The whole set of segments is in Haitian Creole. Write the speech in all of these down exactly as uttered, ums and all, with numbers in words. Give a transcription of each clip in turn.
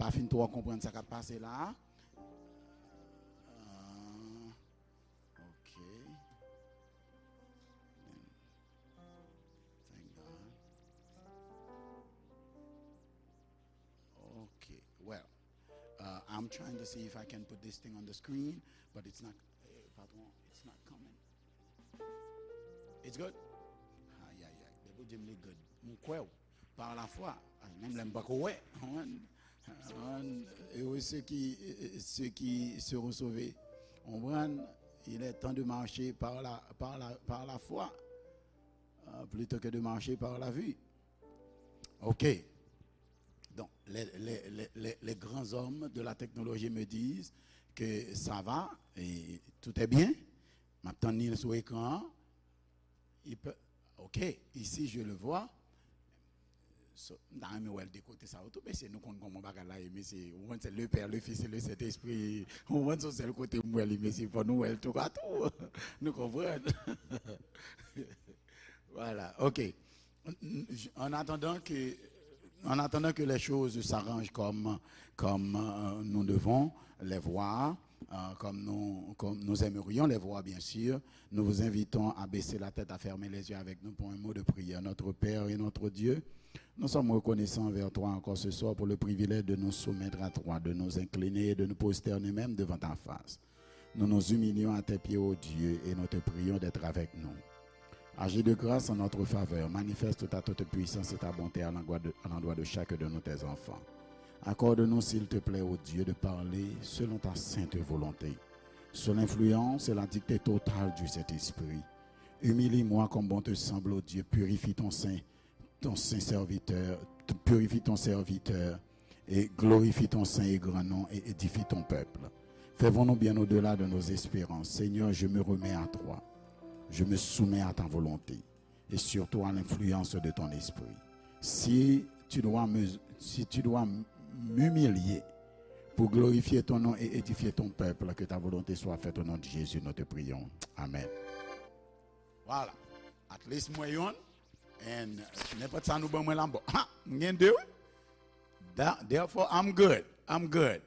pa fin twò konprann sa k ap pase la a. Ah, ok. Thank God. Okay, well, uh, I'm trying to see if I can put this thing on the screen, but it's not, eh, patron, it's not coming. It's good? Ay, ay, ay. Depi w di m li good, m kwè w. Par la foi. Ay, menm lè m pako wè. Konprann? Konprann? Heureux ceux qui, ceux qui seront sauvés. Konprann? Il est temps de marcher par la, par la, par la foi, euh, plutôt que de marcher par la vue. Ok. Donc, les, les, les, les, les grands hommes de la technologie me disent que ça va et tout est bien. M ap tann li sou ekran an. Il peut, ok, ici je le vois. So, m ta renmen wè l de kote sa yo tou, mesye, nou konn kòman bagay la ye, mesye. Ou konn se le Père, le Fils et le Saint-Esprit. Ou konn se yon sèl kote m wè li, mesye, fò nou wè l toupatou. Nou konprann? Voilà, ok. En attendant que, en attendant que les choses s'arrangent comme, comme, euh, nous devons les voir, euh, comme nous, comme nous aimerions les voir, bien sûr, nous vous invitons à baisser la tête, à fermer les yeux avec nous pour un mot de prière. Notre Père et notre Dieu, nous sommes reconnaissants envers toi encore ce soir pour le privilège de nous soumettre à toi, de nous incliner et de nous prosterner même devant ta face. Nous nous humilions à tes pieds, ô Dieu, et nous te prions d'être avec nous. Agis de grâce en notre faveur, manifeste ta toute puissance et ta bonté à l'endroit de, à l'endroit de chacun de nous, tes enfants. Accorde-nous, s'il te plaît, ô Dieu, de parler selon ta sainte volonté, sous l'influence et la dictée totale du Saint-Esprit. Humilie-moi comme bon te semble, ô Dieu, purifie ton saint ton saint serviteur, purifie ton serviteur et glorifie ton saint et grand nom et édifie ton peuple. Fais venir bien au-delà de nos espérances. Seigneur, je me remets à toi. Je me soumets à ta volonté et surtout à l'influence de ton esprit. Si tu dois me, si tu dois m'humilier pour glorifier ton nom et édifier ton peuple, que ta volonté soit faite au nom de Jésus, nous te prions. Amen. Voilà. At least mwen yonn. And, uh, nenpòt sa nou ban mwen la, m bon. Ha! M gen de, wi. Therefore, I'm good. I'm good.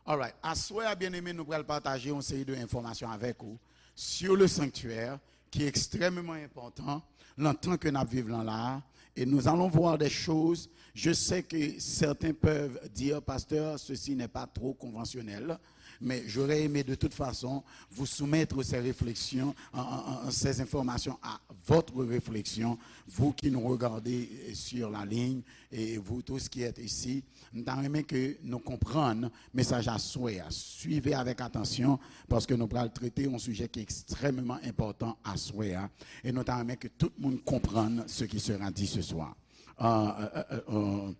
Alright. Aswè a, byeneme, nou pral pataje yon seri de enfòmasyon avèk ou sur le sanctuaire, ki ekstrèmeman enpòtan nan tan ke n ap viv lan la a. Et nous allons voir des choses. Je sais que certains peuvent dire, Pasteur, ceci n'est pas trop conventionnel. Mais j'aurais aimé de toute façon vous soumettre ces réflexions, euh, euh, euh, ces informations à votre réflexion, vous qui nous regardez, euh, sur la ligne, et vous tous qui êtes ici. M ta renmen ke nou konprann mesaj aswè a. Suivez avec attention, paske nou pral trete yon sijè ki ekstrèmeman enpòtan aswè a. E nou ta renmen ke tout moun konprann ce qui sera dit ce soir. Euh, euh, euh, euh,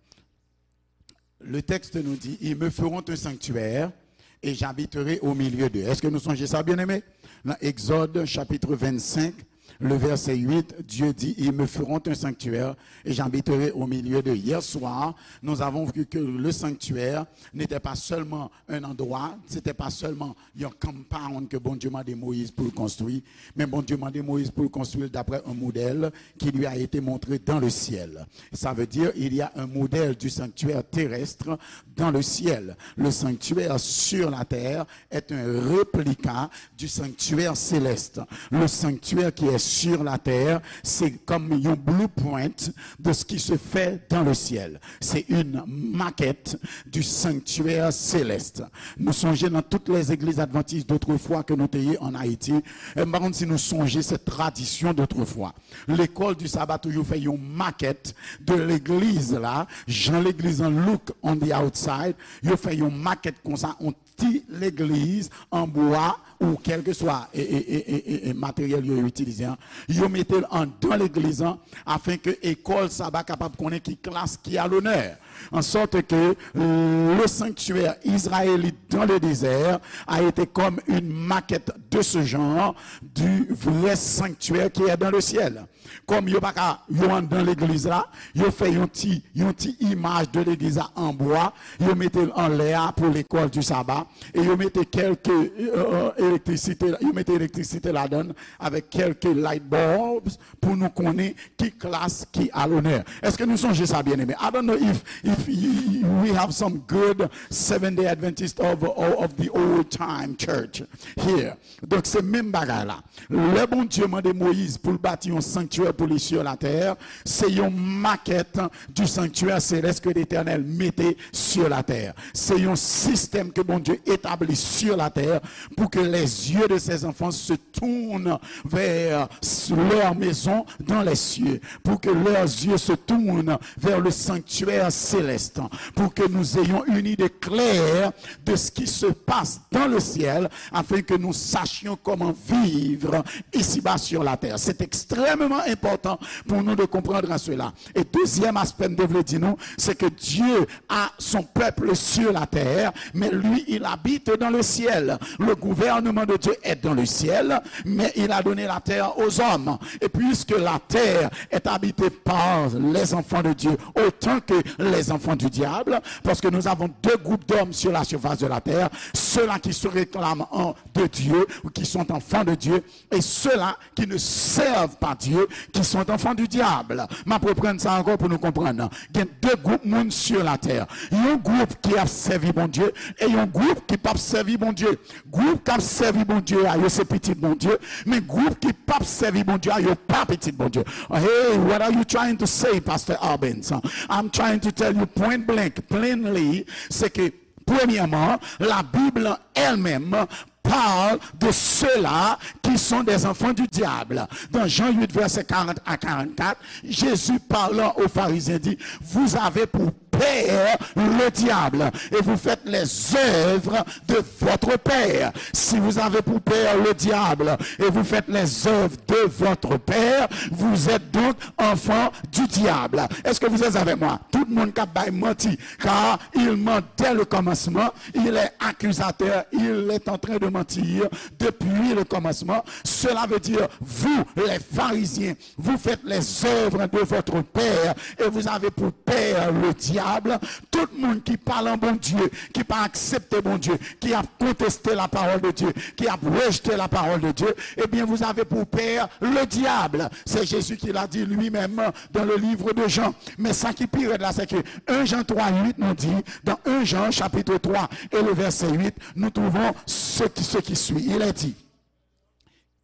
Le texte nous dit, ils me feront un sanctuaire et j'habiterai au milieu d'eux. Èske nou sonje sa, byeneme? Nan Egzòd, chapitre vingt-cinq, le verset huit, Dieu dit, ils me feront un sanctuaire et j'habiterai au milieu d'eux. Hier soir, nous avons vu que le sanctuaire n'était pas seulement un endroit, c'était pas seulement yon compound ke Bondye mande Moyiz pou l konstwi, men Bondye mande Moyiz pou l konstwi l d'après un modèle qui lui a été montré dans le ciel. Ça veut dire, il y a un modèle du sanctuaire terrestre dans le ciel. Le sanctuaire sur la terre est un réplica du sanctuaire céleste. Le sanctuaire qui est sur la terre, c'est comme un blueprint de ce qui se fait dans le ciel. C'est une maquette du sanctuaire céleste. Nou sonje nan tout lè legliz advantis dotrefwa ke nou te ye an Ayiti, e m pa konn si nou sonje cette tradition d'autrefois. L'école du sabbat, toujou fè yon makèt de legliz la, jan legliz an look on the outside, yo fè yon makèt konsa, yon ti legliz an bwa ou kèlkeswa e, e, e, e, e, e materyèl yo itilize an, yo mete l anndan legliz an, afin ke école sabbat kapab konnen ki klas ki a l'honneur. En sorte que le sanctuaire israélite dans le désert a été comme une maquette de ce genre du vrai sanctuaire qui est dans le ciel. Kòm yo pa ka, yo anndan legliz la, yo fè yon ti, yon ti imaj de legliz la an bwa, yo mete l anlè a pou l'école du sabbat, e yo mete kèlke, euh, euh, elektrisite, yo mete elektrisite ladan l avèk kèlke light bulbs pou nou konnen ki klas ki alonè. Èske nou sonje sa, byeneme? I don't know if, if y- y- we have some good Seventh Day Adventist of, of, of the old time church here. Donk, se menm bagay la. Lè Bondye mande Moyiz pou l bati yon sanktyè pou li sur la terre, se yon maquette du sanctuaire céleste que l'Éternel mettait sur la terre. Se yon sistèm ke Bondye etabli sur la terre pour que les yeux de ses enfants se tournent vers leur maison dans les cieux, pour que leurs yeux se tournent vers le sanctuaire céleste, pour que nous ayons une idée claire de ce qui se passe dans le ciel, afin que nous sachions comment vivre ici-bas sur la terre. C'est extrêmement important pour nous de comprendre cela. Et deuxième aspect, m te vle di nou, c'est que Dieu a son peuple sur la terre, mais lui, il habite dans le ciel. Le gouvernement de Dieu est dans le ciel, mais il a donné la terre aux hommes. Et puisque la terre est habitée par les enfants de Dieu, autant que les enfants du diable, parce que nous avons deux groupes d'hommes sur la surface de la terre, ceux-là qui se réclament en- de Dieu, ou qui sont enfants de Dieu, et ceux-là qui ne servent pas Dieu, qui sont enfants du diable. M ap reprann sa ankò pou nou konprann. Gen de gwoup moun sur la terre. Yon gwoup ki ap sèvi Bondye e yon gwoup ki p ap sèvi Bondye. Gwoup k ap sèvi Bondye a, yo se pitit Bondye, men gwoup ki p ap sèvi Bondye a, yo pa pitit Bondye. Hey, what are you trying to say, Pastor Albens? I'm trying to tell you point blank, plainly, c'est que, premièrement, la Bible elle-même parle de ceux-là qui sont des enfants du diable. Dans Jean huit, versets quarante à quarante-quatre, Jésus parlant aux pharisiens dit, vous avez pour père le diable et vous faites les œuvres de votre père. Si vous avez pour père le diable et vous faites les œuvres de votre père, vous êtes donc enfant du diable. Est-ce que vous êtes avec moi? Tout moun k ap bay manti, car il ment dès le commencement, il est accusateur, il est en train de mentir depuis le commencement. Cela veut dire, vous, les pharisiens, vous faites les œuvres de votre père et vous avez pour père le diable. Tout moun ki pa lan Bondye, ki pa aksepte Bondye, ki ap konteste la parole de Dieu, qui a rejeté la parole de Dieu, eh bien, vous avez pour père le diable. C'est Jésus qui l'a dit lui-même dans le livre de Jean. Men sa ki pi rèd la, se ke un Jean trois huit nous dit, dans un Jean chapitre trois et le verset huit, nous trouvons ce qui, ce qui suit. Il est dit,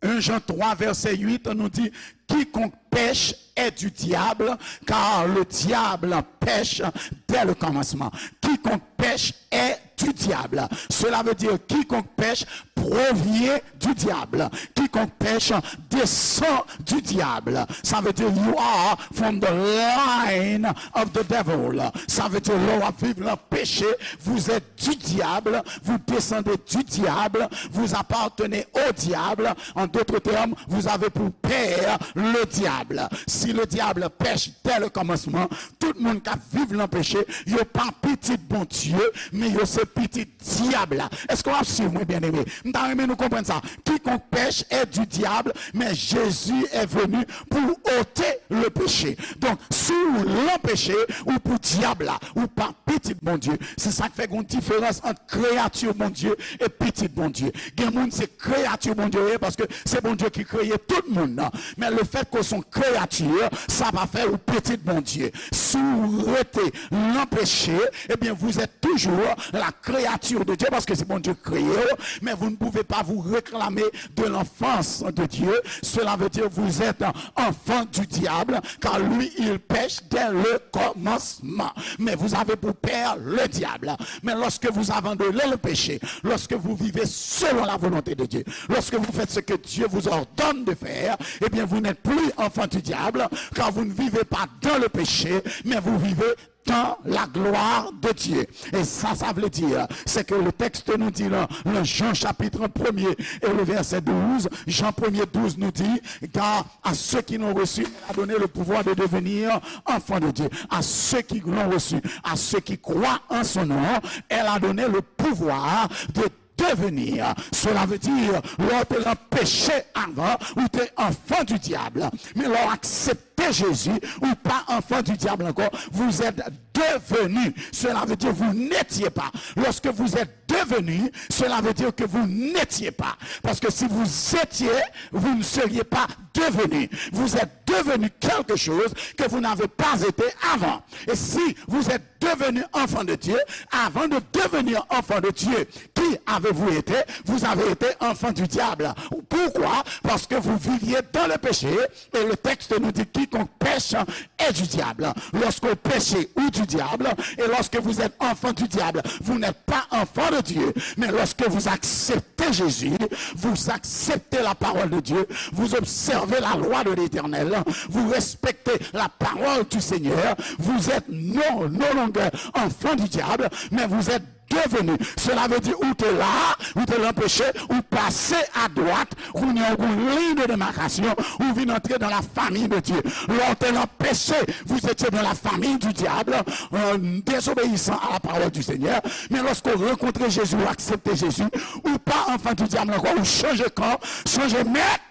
un Jean trois, verset huit nous dit, quiconque pèche est du diable, car le diable pèche dès le commencement. Quiconque pèche est du diable. Cela veut dire, quiconque pèche provient du diable. Quiconque pèche descend du diable. Ça veut dire, you are from the line of the devil. Ça veut dire, lè w ap viv nan peche, vous êtes du diable, vous descendez du diable, vous appartenez au diable. En d'autres termes, vous avez pour père le diable. Si le diable pèche dès le commencement, tout moun k ap viv nan peche, yo pa pitit Bondye, men yo se pitit dyab la. Èske w ap swiv mwen, byeneme? M ta renmen nou konprann sa. Quiconque pèche est du diable, mais Jésus est venu pour ôter le péché. Donk, si w lan peche, ou pou dyab la, ou pa pitit Bondye. Se sa k fè gen yon diferans ant kreyati Bondye e pitit Bondye. Gen moun se kreyati Bondye yo ye, paske se Bondye ki kreye tout moun nan. Men lefètke w se yon kreyati, sa pa fè ou pitit Bondye. Si w rete lan peche, ebyen, vous êtes toujours la créature de Dieu, paske se Bondye k kreye w, men vous ne pouvez pas vous réclamer de l'enfance de Dieu. Cela veut dire vous êtes enfant du diable, car lui, il pèche dès le commencement. Mais vous avez pour père le diable. Mais lorsque vous abandonnez le péché, lorsque vous vivez selon la volonté de Dieu, lorsque vous faites ce que Dieu vous ordonne de faire, eh bien, vous n'êtes plus enfant du diable, car vous ne vivez pas dans le péché, mais vous vivez dans la gloire de Dieu. E sa, sa vle di, se ke le texte nous dit dans, dans Jean chapitre premier et le verset douze, Jean premier douze nous dit, car à ceux qui l'ont reçu, elle a donné le pouvoir de devenir enfants de Dieu. À ceux qui l'ont reçu, à ceux qui croient en son nom, elle a donné le pouvoir de devenir. Cela veut dire, lè w te nan peche avan, ou te enfant du diable. Men lè w aksepte Jezi, ou pa enfant du diable ankò. Vous êtes devenu, cela veut dire vous n'étiez pas. Lorsque vous êtes devenu, cela veut dire que vous n'étiez pas. Parce que si vous étiez, vous ne seriez pas devenu. Vous êtes devenu quelque chose que vous n'avez pas été avant. Et si vous êtes devenu enfant de Dieu, avant de devenir enfant de Dieu, qui avez-vous été? Vous avez été enfant du diable. Pourquoi? Parce que vous viviez dans le péché et le texte nous dit quiconque pêche est du diable. Lorsqu'on péche ou du diable, et lorsque vous êtes enfant du diable, vous n'êtes pas enfant de Dieu. Mais lorsque vous acceptez Jésus, vous acceptez la parole de Dieu, vous observez la loi de l'Éternel, vous respectez la parole du Seigneur, vous êtes non, no longer enfant du diable, mais vous êtes devenu. Cela veut dire ou te la, ou te lan peche, ou pase a dwat, kounye a ou gon liy de demarkasyon, ou vin antre dans la famille de Dieu. Lè w te lan peche, vous étiez dans la famille du diable, euh, désobéissant à la parole du Seigneur. Men lòske w rankontre Jezi, ou aksepte Jezi, ou pa enfant du diable ankò, ou chanje kan, chanje mèt,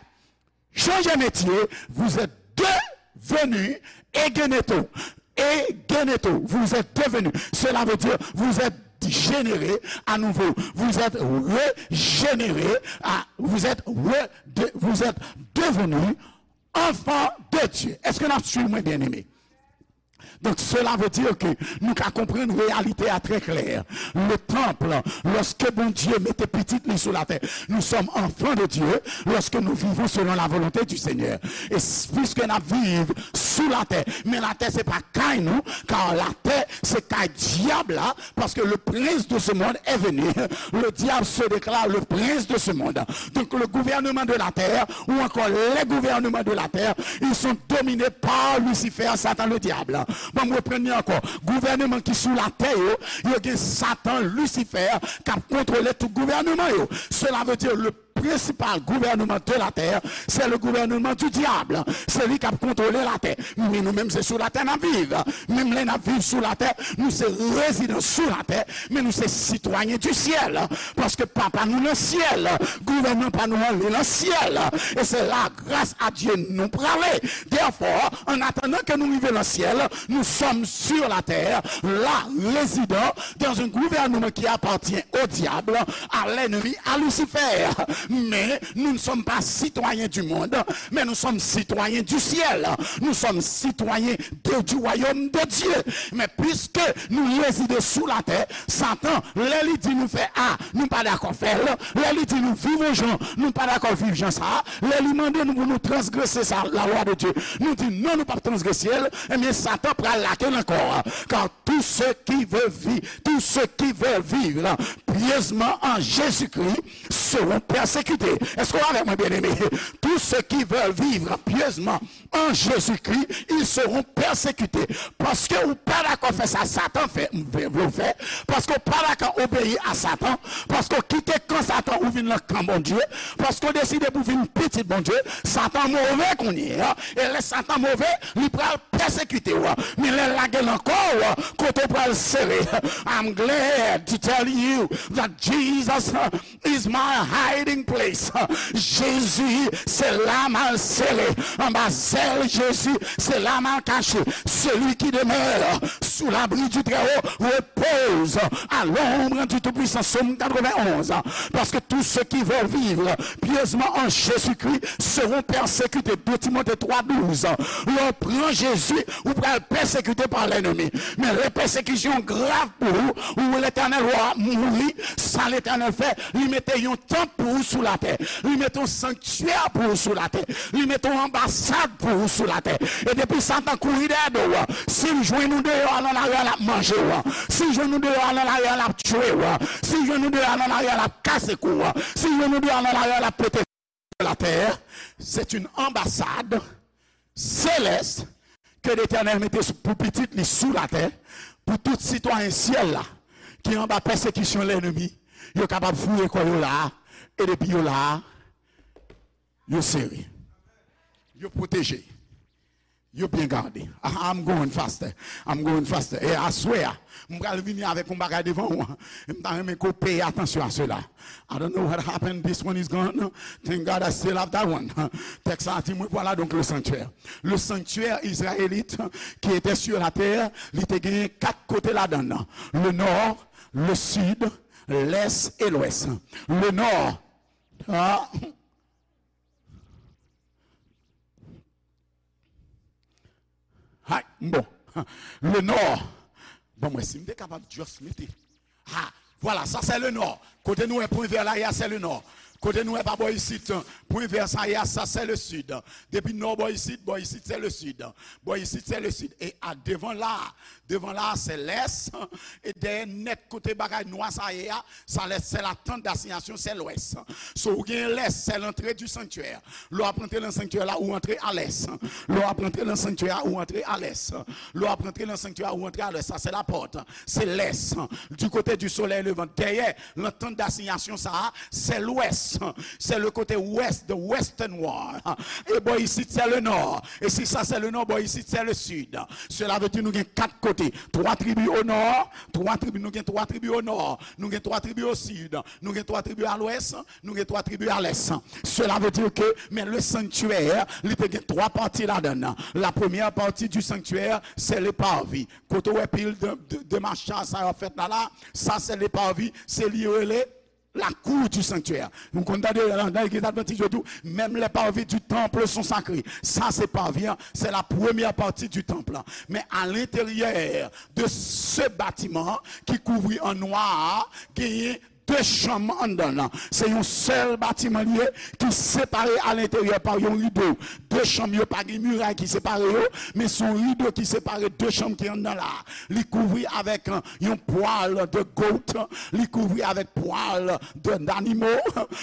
chanje metye, vous êtes devenu egeneto. Egeneto, vous êtes devenu. Cela veut dire, vous êtes généré à nouveau. Vous êtes régénéré, à, vous êtes, re, de, vous êtes devenu enfant de Dieu. Est-ce que n ap swiv mwen, bien-aimé? Donc, cela veut dire que nou ka konprann reyalite a trè klè. Le temple, lorsque Bondye mete pitit li sou latè, nous sommes enfants de Dieu lorsque nous vivons selon la volonté du Seigneur. Et s- puisque n ap viv sou latè, men latè se pa kay nou, car latè se kay dyab la, parce que le prince de ce monde est venu. Le diable se déclare le prince de ce monde. Donc le gouvernement de la terre, ou encore les gouvernements de la terre, ils sont dominés par Lucifer, Satan le diable. Bon, m reprann li ankò. Gouvènman ki sou latè yo, yo gen Satan, Lucifer, k ap kontwole tout gouvènman yo. Cela veut dire le principal gouvernement de la terre, c'est le gouvernement du diable. Se li k ap kontwole latè. Men nou menm, se sou latè n ap viv. Menm lè n ap viv sou latè, nou se rezidan sou latè, men nou se sitwayen du ciel. Paske papa nou nan syèl, gouvènman pa nou an li nan syèl. E se la, grâce à Dieu, nou prale. Therefore, en attendant que nous arrivions dans le ciel, nous sommes sur la terre, là, résidant dans un gouvernement qui appartient au diable, à l'ennemi, à Lucifer. Mais nous ne sommes pas citoyens du monde, mais nous sommes citoyens du ciel. Nous sommes citoyens de, du royaume de Dieu. Mais puisque nous résidons sous la terre, Satan, lè li di nou fè A, nou pa dakò fè l. Lè li di nou viv yon jan, nou pa dakò viv jan sa a. Lè li mande nou pou nou transgrese sa, la loi de Dieu, nou di non, nou p ap transgrese l. Ebyen, Satan pral lage l ankò. Car tous ceux qui veulent vivre, tous ceux qui veulent vivre pieusement en Jésus-Christ seront persécutés. Est-ce que vous êtes avec moi, bien-aimé? Tous ceux qui veulent vivre pieusement en Jésus-Christ, ils seront persécutés. Paske ou pa dakò fè sa Satan fè, vle w fè, paske ou pa dakò obeyi a Satan, paske w kite kan Satan, ou vin nan kan Bondye, paske w deside pou vin pitit Bondye, Satan move kounye a. E lè Satan move, li pral pèsekite w. Men lè l lage l ankò, kote w pral sere. I'm glad to tell you that Jesus is my hiding place. Jezi, se la m al sere. Anba zèl Jezi, se la m al kache. Celui qui demeure sous l'abri du Très-Haut repose à l'ombre du Tout-Puissant. Sòm katrevenn onz. Parce que tous ceux qui veulent vivre pieusement en Jésus-Christ seront persécutés. De Timothée trois douze. Lè w pran Jezi, ou pral pèsekite pa lènmi. Men lè pèsekisyon grav pou ou, ou Letènèl, w ap mouri. Sa Letènèl fè? Li mete yon tanp pou ou sou latè. Li mete yon sanktyè pou ou sou latè. Li mete yon anbasad pou ou sou latè. E depi Satan kouri dèyè do w, si l jwenn ou deyò a nan lari a, l ap manje w. Si l jwenn ou deyò a nan lari a, l ap tchwe w. Si l jwenn ou deyò a nan lari a, l ap kase kou w. Si l jwenn ou deyò a nan lari a, l ap pete la terre, c'est une ambassade céleste que l'Éternel mete sou, pou pitit li sou latè, pou tout sitwayen syèl la ki anba pèsekisyon lènmi, yo kapab foure kò yo la a, e depi yo la a, yo sere, yo pwoteje. Yo byen gade. Ah, I'm going faster. I'm going faster. E aswè a, m pral vini avèk yon bagay devan ou. M ta renmen ke w peye atansyon a sela. I don't know what happened. This one is gone. Thank God I still have that one. Tèks la di mwen, voilà donc le sanctuaire. Le sanctuaire israélite qui était sur la terre, li te genyen kat kote ladan l. Le nord, le sud, l'est et l'ouest. Le nord, ah, Hay, bon. Le nord. Bon, mwen, si m te kapab just mete. Ah, voilà, ça c'est le nord. Kote nou wè pwen vè la, ya, c'est le nord. Kote nou wè pa bò isit, pwen vè sa, ya, ça c'est le sud. Depi nò bò isit, bò isit, c'est le sud. Bò isit, c'est le sud. E a devan la, devan la, c'est l'est. E dèyè nèt kote bagay nwa sa ye a, sa lè, c'est la tente d'assignation, c'est l'ouest. So, ou gen l'est, c'est l'entrée du sanctuaire. Lè w ap rantre nan sanktyè la, ou rantre a l'est. Lè w ap rantre nan sanktyè a, ou rantre a l'est. Lè w ap rantre nan sanktyè a, ou rantre a l'est. Sa, c'est la porte. C'est l'est. Du côté du soleil levant. Dèyè, la tente d'assignation, sa, c'est l'ouest. C'est le côté ouest, the western wall. E bò isit, c'est le nord. E si sa, c'est le nord, bò isit, c'est le sud. Cela veut dire nou gen kat kote. Twa tribi o nò, twa tribi, nou gen twa tribi o nò, nou gen twa tribi o sid, nou gen twa tribi a l'ouest, nou gen twa tribi a l'est. Cela veut dire que, men le sanctuaire, li te gen twa pati ladan l. La première partie du sanctuaire, c'est le parvis. Kote w wè pil de, de, de macha sa yo fèt la, la, sa se le parvis, se li yo rele la cour du sanctuaire. Nou konn tande nan, nan legliz advantis yo di w, même les parvis du temple sont sacrés. Sa se parvis an, c'est la première partie du temple. Men à l'intérieur de ce bâtiment ki kouvri an nwa a, genyen de chanm anndan l. Se yon sèl batiman li ye ki separe à l'intérieur par yon rido. De chanm yo pa gen miray ki separe yo, men se yon rido ki separe de chanm ki anndan la. Li kouvri avèk, euh, yon pwal de goat, li kouvri avèk pwal de, d'animo,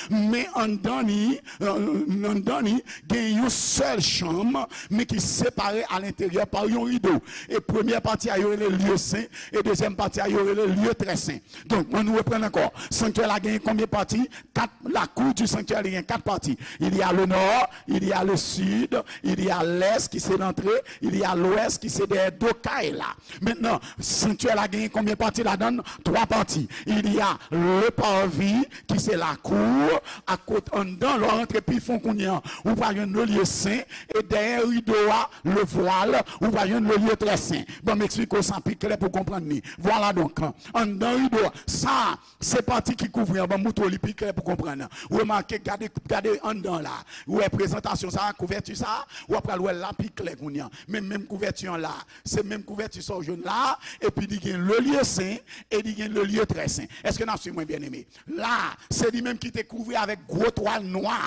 men anndan li, euh, anndan li, gen yon sèl chanm, men ki separe à l'intérieur par yon rido. E premyè pati a yo rele lye sen, e dezyèm pati a yo rele lye trè sen. Donk, ann nou reprann ankò. Sanktyè la genyen konbyen pati? Kat, la cour du sanctuaire, li gen kat pati. Il y a le nord, il y a le sud, il y a l'est ki se lantre, il y a l'ouest ki se dèyè do kay la. Mentnan, sanktyè la genyen konbyen pati ladan l? Twa pati. Il y a le parvis ki se lakou, a kot anndan, lè w rantre pi fon kounye an, ou pral jwenn le lye sen, e dèyè rido a, le vwal, ou pral jwenn le lye trè sen. Ban m eksplike w sa pi klè pou w konprann li. Vwala donk, anndan rido a, sa, se pati ki kouvri an, ban m moutre w li pi klè pou w konprann. Remake, gade, gade anndan la. Ou wè prezantasyon sa, kouvèti sa, w ap pral wè l la pi klè kounye an. Men menm kouvèti an la, se menm kouvèti sa w jwenn la, epi li gen le lye sen, e li gen le lye trè sen. Èske n ap swiv mwen, byeneme? La, se li menm ki te kouvri avèk gwo twal nwa.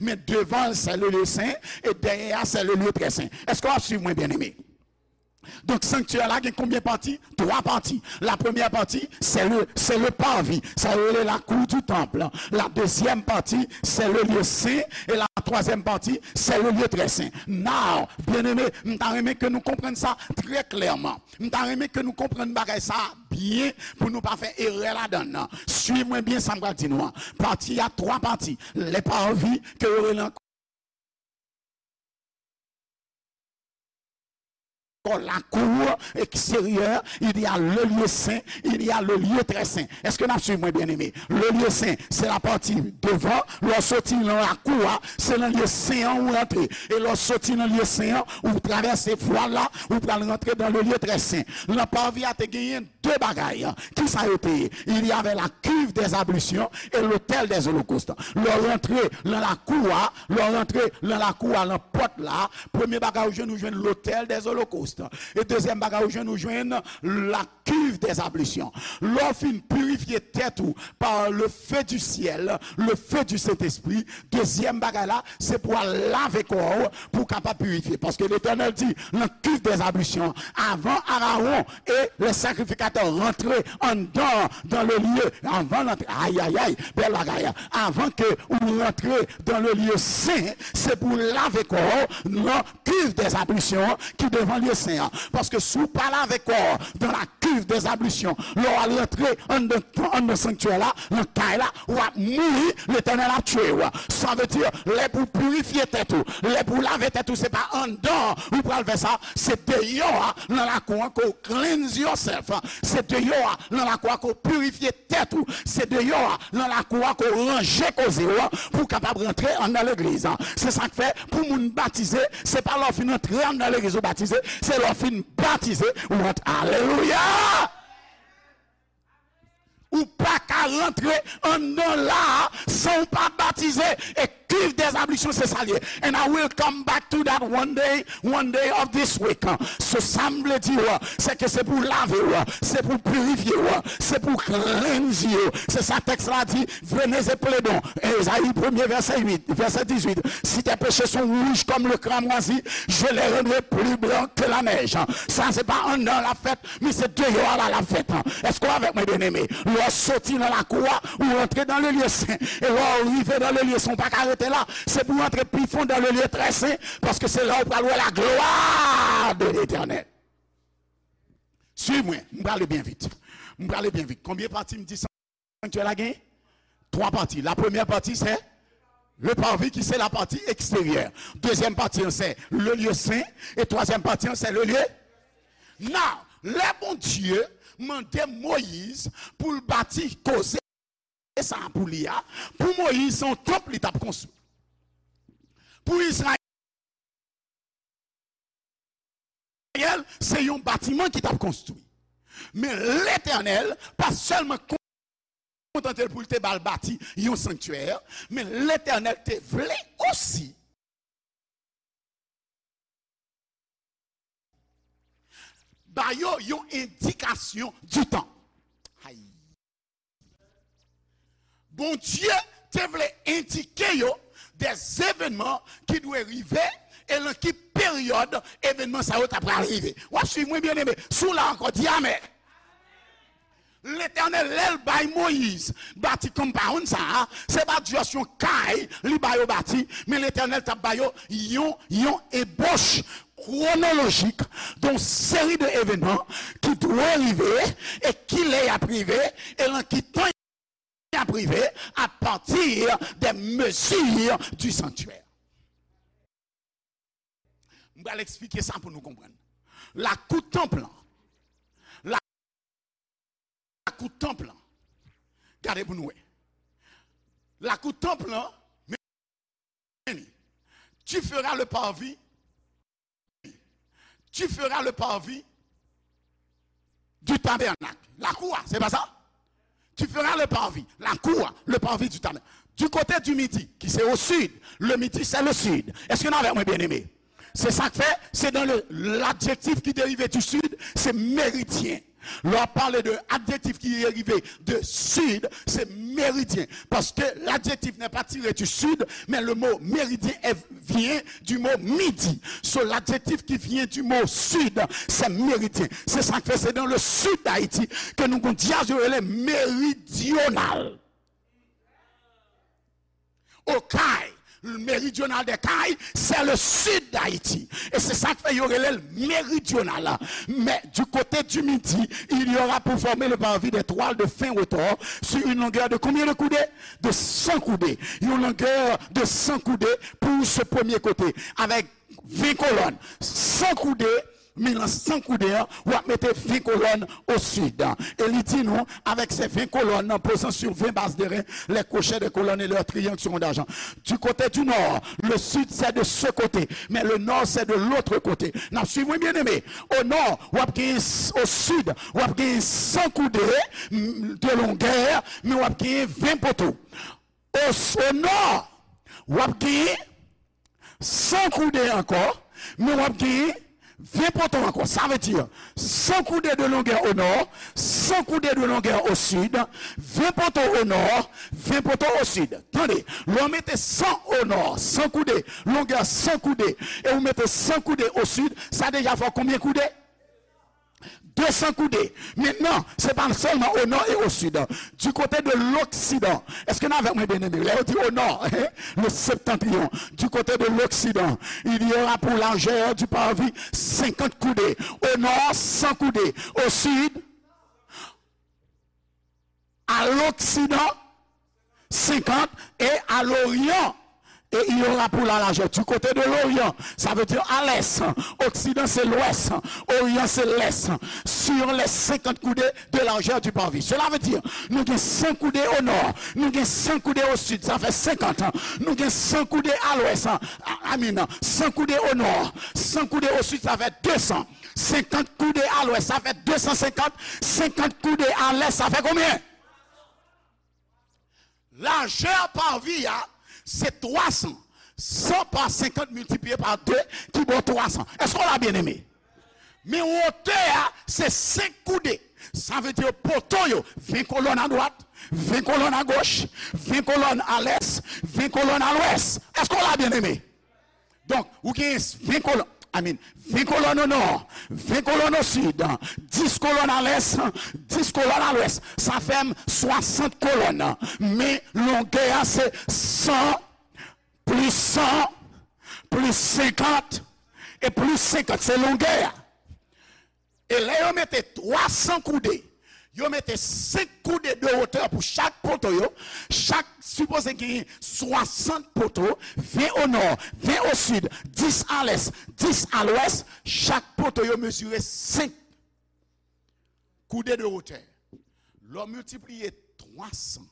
Men devan l, se le lye sen, e dèyè a, se le lye trè sen. Èske w ap swiv mwen, byeneme? Donk, sanktyè la gen konbyen pati? Twa pati. La première partie, c'est le, c'est le parvis. Sa yo rele la cour du temple. La deuxième partie, c'est le lieu saint. Et la troisième partie, c'est le lieu très saint. Now, byeneme, m ta renmen ke nou konprann sa trè klèman. M ta renmen ke nou konprann bagay sa byen pou nou pa fè erè ladan l. Swiv mwen byen sa m pral di nou an. Pati a twa pati. Le parvis ke yo rele ankò la cour extérieure, il y a le lieu saint, il y a le lieu très saint. Èske n ap swiv mwen, byeneme? Le lieu saint, se la pati devan, lè w soti nan lakou a, se nan lye sen an ou rantre. E lè w soti nan lye sen an, ou travèse vwal la, ou pral rantre dans le lieu très saint. Nan parvis a te genyen de bagay. Ki sa yo te ye? Il y avait la cuve des ablutions et l'autel des holocaustes. Lè w rantre nan lakou a, lè w rantre nan lakou a, nan pòt la, premye bagay ou jwenn, ou jwenn l'autel des holocaustes. E dezyèm bagay ou jwenn, ou jwenn la cuve des ablutions. Lè w fin pirifye tèt ou par le feu du ciel, le feu du Saint-Esprit, dezyèm bagay la, se pou al lave kò w, pou w kapab pirifye. Paske Letènèl di, nan cuve des ablutions, avan Arawon e lè sakrifikatè rantre anndan, dans le lieu, avan l antre, ayayay, bèl bagay, avan ke ou rantre dans le lieu saint, se pou w lave kò w nan cuve des ablutions ki devan lye sen an. Paske si w pa lave kò w dans la cuve des ablutions. Lè w al rantre anndan, anndan sanktyè la, nan kay la, w ap mouri, Letènèl ap tchwe w. Sa vle di, lè pou pirifye tèt ou, lè pou lave tèt ou, se pa anndan ou pral fè sa, se deyò a, nan lakou an, ke w cleanse yourself. Se deyò a, nan lakou a, ke w pirifye tèt ou. Se deyò a, nan lakou a, ke w ranje koze w pou w kapab rantre anndan legliz. Se sa k fè, pou moun batize, se pa lè w fin antre anndan legliz ou batize, se lè w fin batize ou rantre. Alelouya! Ou pa ka rantre anndan la a san w pa batize. E cuve des ablutions, se sa l ye. And I will come back to that one day, one day of this week. So, sa m vle di w, se ke se pou lave w, se pou pirifye w, se pou cleanse w. Se sa tèks la di, venez et plaidons. Ezayi premye, vèsè uit, vèsè dizuit. Si tes péchés sont rouges comme le cramoisi, je les rendrai plus blancs que la neige. Sa, se pa anndan l ap fèt, men se deyò a la l ap fèt. Èske w avèk mwen, byeneme? Lè w soti nan lakou a, ou rantre dans le lieu saint. E lè w rive dans le lieu saint, ou pa ka rete la. Se pou w rantre pi fon dans le lieu très saint, paske se la ou pral wè la gloire de l'Éternel. Swiv mwen, m prale byen vit. M prale byen vit. Konbyen pati m di sanktyè la gen? Twa pati. La premyè pati, se le parvis, ki se la pati eksteryè. Dezyèm pati an, se le lieu saint. E twazyèm pati an, se le lieu. Now, lè Bondye mande Moyiz pou l bati koze sa pou li a, pou Moyiz, se yon tanp li t ap konstwi. Pou Izrayèl, se yon batiman ki t ap konstwi. Men Letènèl pa sèlman kontante l pou l te ba l bati yon sanktyè, men Letènèl te vle osi ba yo yon endikasyon di tan. Ay. Bondye te vle endike yo des événements ki dwe rive e nan ki peryòd evènman sa yo ta pral rive. W ap swiv mwen, byeneme? Si w la ankò, di amèn. Letènèl, lè l bay Moyiz bati konpawn sa a, se pa just yon kay li ba yo bati, men Letènèl t ap ba yo yon, yon ebòch kwonolojik de yon seri de evènman ki dwe rive e kilè y ap rive e nan ki tan y ap rive, à partir des mesures du sanctuaire. M pral eksplike sa pou nou konprann. Lakou tanp lan. Lakou tanp lan. Gade pou nou wè. Lakou tanp lan, men li. Tu feras le parvis. Tu feras le parvis du tabernacle. Lakou a, se pa sa? Tu feras le parvis. Lakou a, le parvis du tabernacle. Du côté du midi, ki se au sud. Le midi, c'est le sud. Èske n avèk mwen, byeneme? Se sa k fè, se dans le, l'adjektif ki derive du sud, se meridyen. Lè w ap pale de adjektif ki derive de sud, se meridyen. Parce que l'adjectif n'est pas tiré du sud, mais le mot méridien est, vient du mot midi. So, l'adjectif qui vient du mot sud, c'est méridien. Se sa k fè se dans le sud d'Haïti ke nou gon dyaz yo rele meridional. Okay, méridional des Cayes, c'est le sud d'Haïti. E se sa k fè yo rele l meridional. Mais du côté du midi, il y aura pour former le parvis des toiles de fin retors sur une longueur de combien de coudées? De cent coudées. Une longueur de cent coudées pour ce premier côté, avec vingt colonnes. Cent coudées, men nan san koudè an, w ap mete ven kolòn au sud. E li di nou, avec ces vingt colonnes, posant sur vingt bases d'airain, les crochets des colonnes et leurs triangles seront d'argent. Du côté du nord, le sud c'est de ce côté, mais le nord c'est de l'autre côté. N ap swiv, wi, byeneme. Au nord, w ap gen, au sud, w ap gen san koudè, mm, de longueur, men w ap gen ven poto. Au, au nord, w ap gen san koudè ankò, men w ap gen ven poto ankò. Sa vle di, san koudè de longueur au nord, san koudè de longueur au sud, ven poto au nord, ven poto au sud. Tande, lè w mete san au nord, san koudè, longueur san koudè, e ou mete san koudè au sud, sa deja fè w konbyen koudè? De san koudè. Mentnan, se pa sèlman au nord et au sud. Du côté de l'occident. Èske n avèk mwen, byeneme? Lè yo di au nord, le septentrion. Du côté de l'occident, il y aura pour largeur du parvis cinquante coudées. Au nord, san koudè. Au sud, l'occident, cinquante, et à l'orient, et il y aura pour la largeur. Du côté de l'orient, ça veut dire à l'est. Occident, c'est l'ouest. Orient, c'est l'est. Sur les cinquante coudées de largeur du parvis. Cela veut dire, nou gen san koudé o nò, nou gen san koudé o sid, sa fè senkant. Nou gen san koudé a lwès, a, I mean, san koudé o nò, san koudé o sid, sa fè de san. Senkant koudé a lwès, sa fè de san senkant. Senkant koudé a lès, sa fè konbyen? Lajè pavi a, se twa san. San pa senkant miltipliye pa de ki ba w twa san. Èske w la, byeneme? Men wotè a, se senk koudé. Sa vle di poto yo, ven kolòn adwat, ven kolòn agoch, ven kolòn alès, ven kolòn alwès. Èske w la, byeneme? Donk, ou gen ven kolòn, I mean, ven kolòn o nò, ven kolòn o sid, dis kolòn alès, dis kolòn alwès. Sa fè m swasant kolòn. Men longè a se san plis san plis senkant e plis senkant. Se longè a. E lè yo mete twa san koudé, yo mete senk koudé de wotè pou chak poto yo, chak sipoze genyen swasant poto, ven o nò, ven o sid, dis a lès, dis a lwès, chak poto yo mezire senk koudé de wotè. Lè w miltipliye twa san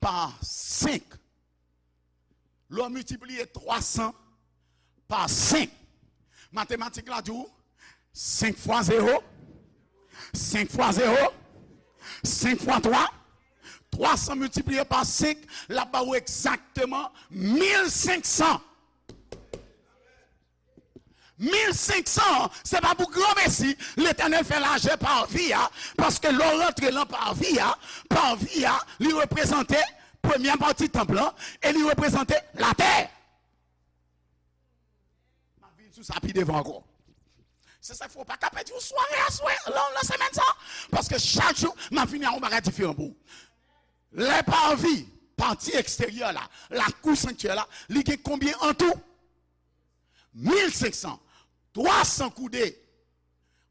pa senk, lè w miltipliye twa san pa senk, matematik la di w senk fwa zewo, senk fwa zewo, senk fwa twa, twa san miltipliye pa senk, l ap ba w egzakteman mil senk san. Mil senk san an, se pa pou granmesi Letènèl fè lajè pavi a, paske lè w rantre nan pavi a, pavi a, li reprezante premyè pati tanp lan, e li reprezante latè. M ap vin sou sa pi devan ankò. Se sa k fè w pa ka pèdi yon sware aswè, lan, nan semèn sa, paske chak jou, m ap vini a yon bagay diferan pou ou. Lè pavi, pati eksteryè la, lakou sanktyè la, li gen konbyen an tou? Mil senk san. Twa san koudé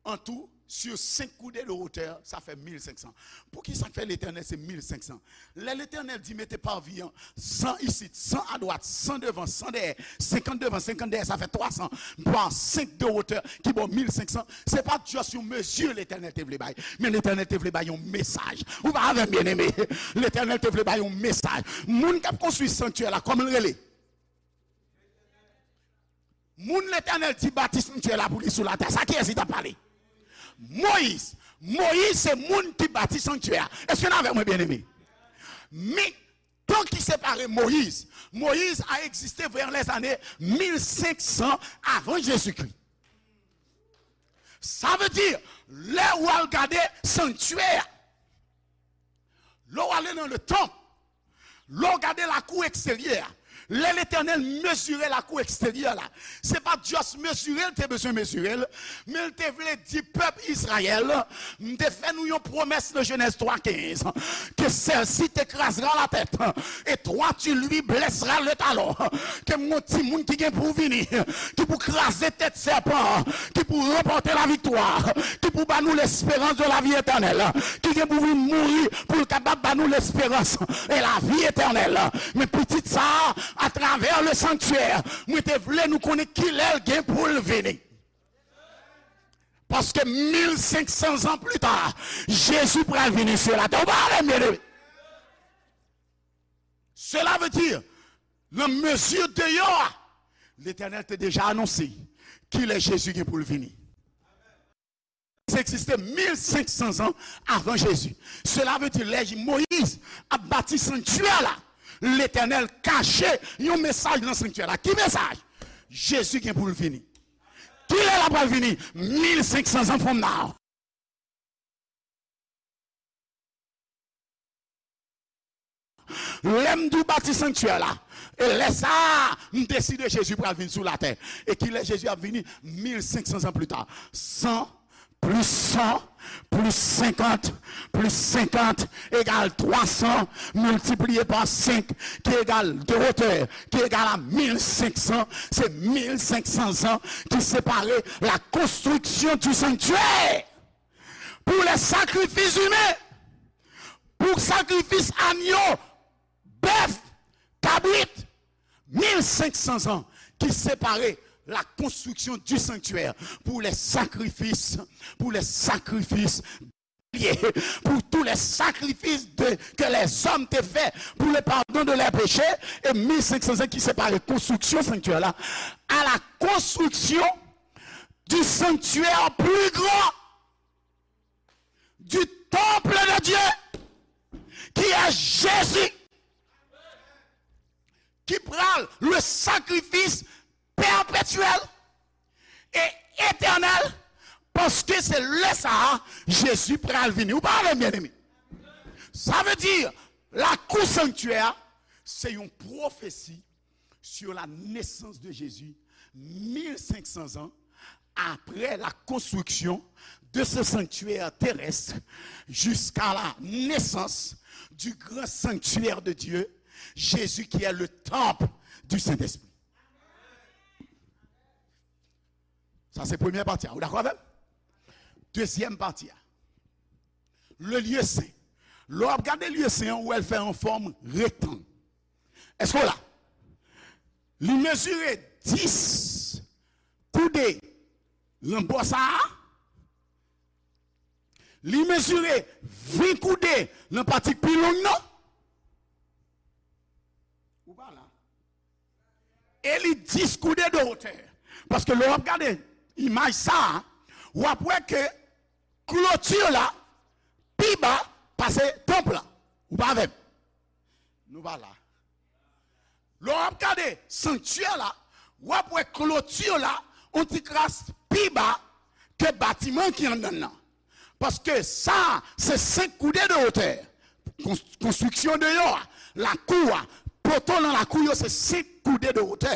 an tou, sur senk koudé de wotè, sa fè mil senk san. Poukisa k fè Letènèl se mil senk san? Lè Letènèl di mete pavi an, san isit, san adwat, san devan, san dèyè, senkant devan, senkant dèyè, sa fè twa san, pa senk de wotè, ki ba w mil senk san. Se pa just yon mezi Letènèl te vle bay, men Letènèl te vle bay yon mesaj. Ou pa avè m, byeneme? Letènèl te vle bay yon mesaj. Moun k ap konstwi sanktyè la, kòman l rele? Moun Letènèl di bati sanktyè la pou li sou latè. Sa kiyès li t ap pale? Moyiz. Moyiz se moun ki bati sanktyè a. Èske n avè mwen, byeneme? Men, tan ki separe Moyiz, Moyiz a egziste vers les années mil senk san avan Jezikri. Sa vle di, lè w al gade sanktyè a, lè w ale nan le tanp, lè w gade lakou eksteryè a, lè Letènèl mezire lakou eksteryè la, se pa just mezire l te bezwen mezire l, men l te vle di pèp Izrayèl, m te fè nou yon pwomès nan Jenèz twa kenz, que celle-ci t'écrasera la tête, et toi tu lui blesseras le talon, ke m gon timoun ki gen pou vini, ki pou kraze tèt sèpan an, ki pou ranpòte laviktwa, ki pou ba nou lesperans de lavi etènèl, ki gen pou vin mouri pou l kapab ba nou lesperans e lavi etènèl. Men pitit sa a, atravè le sanktyè, mwen te vle nou konnen kilè l gen pou l vini. Paske mil senk san zan pli ta, Jezi pral vini sou latè. Ou pa avè m, byeneme? Cela veut dire, nan mezi deyò a, Letènèl te deja anonse kilè Jezi gen pou l vini. Sa egziste mil senk san zan avan Jezi. Cela veut dire, lè Moyiz ap bati sanktyè la, Letènèl kache yon mesaj nan sanktyè la. Ki mesaj? Jezi gen pou l vini. Kilè l ap pral vini? Mil senk san zan fòm nan. Lè m di w bati sanktyè la, e lè sa a, m deside Jezi pral vin sou latè. E kilè Jezi ap vini? Mil senk san zan pli ta. San plis san plis senkant plis senkant egal twa san miltipliye pa senk, ki egal de wotè, ki egal a mil senk san. Se mil senk san zan ki separe la construction du sanctuaire pour les sacrifices humains. sakrifis anyo, bèf, kabrit, mil senk san zan ki separe la construction du sanctuaire pour les sacrifices, pour les sacrifices, pour tous les sacrifices de, que les hommes te fait pour le pardon de leurs péchés, et mil senk san zan ki separe konstriksyon sanktyè la à la construction du sanctuaire plus grand, du temple de Dieu, qui est Jésus, qui pral le sacrifice perpétuel et éternel, paske se lè sa a Jezi pral vini. Ou pa avè m, byeneme? Sa vle di, lakou sanktyè a, se yon pwofesi sur la naissance de Jésus, mil senk san zan après la construction de ce sanctuaire terrestre, jusqu'à la naissance du grand sanctuaire de Dieu, Jésus qui est le temple du Saint-Esprit. Sa se premyè pati a. Ou dakò avè m? Dezyèm pati a. Le lieu saint. Lè w ap gade lieu saint an, ou wè l fè an fòm rektang. Èske w la? Li mezire dis koude nan bò sa a. Li mezire ven koude nan pati k pi long nan. Ou pa la. E li dis koude de wotè. Paske lè w ap gade imaj sa a, w ap wè ke kloti la pi ba pase tanp la. Ou pa avè m? Nou pa la. Lè w ap gade sanktyè la, w ap wè kloti la yon ti kras pi ba ke batiman ki anndan l nan. Paske sa a se senk koude de wotè. Kons-, konstriksyon deyò a, lakou a, poto nan lakou yo se senk koude de wotè.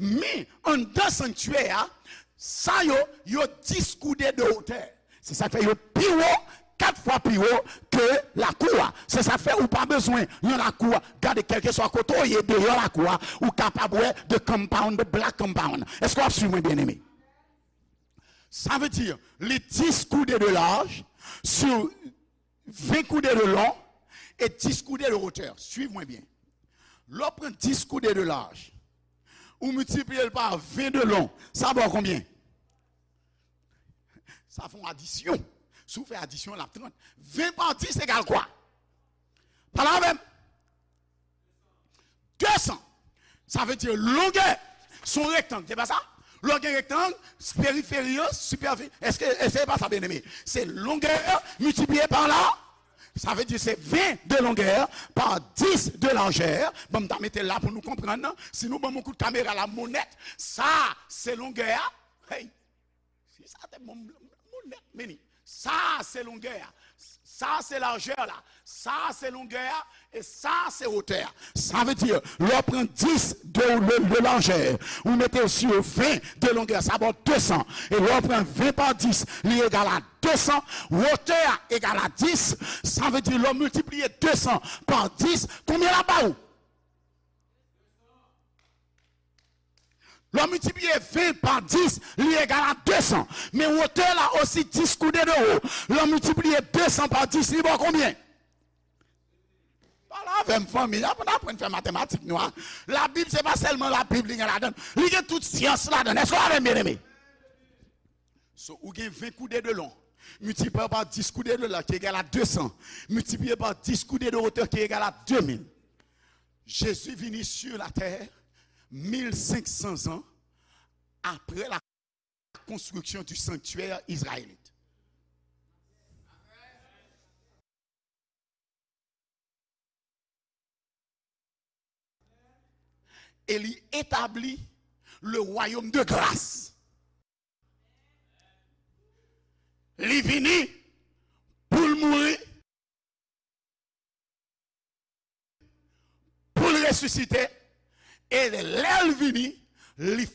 Men, anndan sanktyè a, sa yo, yo dis koude de wotè. Se sa k fè yo pi wo, kat fwa pi wo ke lakou a. Se sa k fè ou pa bezwen nan lakou a. Gade, kèlkeswa kote w ye deyò lakou a, ou kapab wè the compound, the black compound. Èske w ap swiv mwen, byeneme? Sa vle di, li dis koude de laj, sou ven koude de long, e dis koude de wotè. Swiv mwen byen. Lè w pran dis koude de laj, ou miltipliye l pa ven de long, sa ba w konbyen? Sa fè yon adisyon. Si w fè adisyon, l ap trant. Ven pa dis egal kwa? Pale avè m. De san. Sa vle di longè se yon rektang, se pa sa? Lè w gen rektang, periferi yo, sipèfi-, èske, èske se pa sa, byeneme? Se longè miltipliye pa la. Sa vle di se ven de longè pa dis de lajè. Ban m ta mete l la pou nou konprann. Si nou ban m yon kout kamera la, monèt, sa, se longè a. Hey! Si sa te bon, m, m, monèt, meni. Sa se longè a. Sa se lajè la. Sa se longè a. E sa se wotè a. Sa vle di, lè w pran dis de, de, de lajè, ou mete l sou ven de longè, sa ba w de san. E lè w pran ven pa dis, li egal a de san. Wotè a egal a dis. Sa vle di, lè w miltipliye de san pa dis, konbyen l ap ba ou? Lè w miltipliye ven pa dis, li egal a de san. Men wotè la osi dis koude de wo. Lè w miltipliye de san pa dis, li ba w konbyen? Pale avè m, fanmi. Aprann, aprann fè matematik nou a. Labib, se pa sèlman Labib li gen ladan l. Li gen tout syans ladan l. Èske w avè m, byeneme? So, ou gen ven koude de long, miltipliye pa dis koude de laj, ki egal a de san, miltipliye pa dis koude de wotè, ki egal a de mil. Jezi vini sur la terre mil senk san zan apre la konstriksyon du sanctuaire israélite. E li etabli le royaume de grâce. Li vini pou l mouri, pou l resisite, e lè l vini, li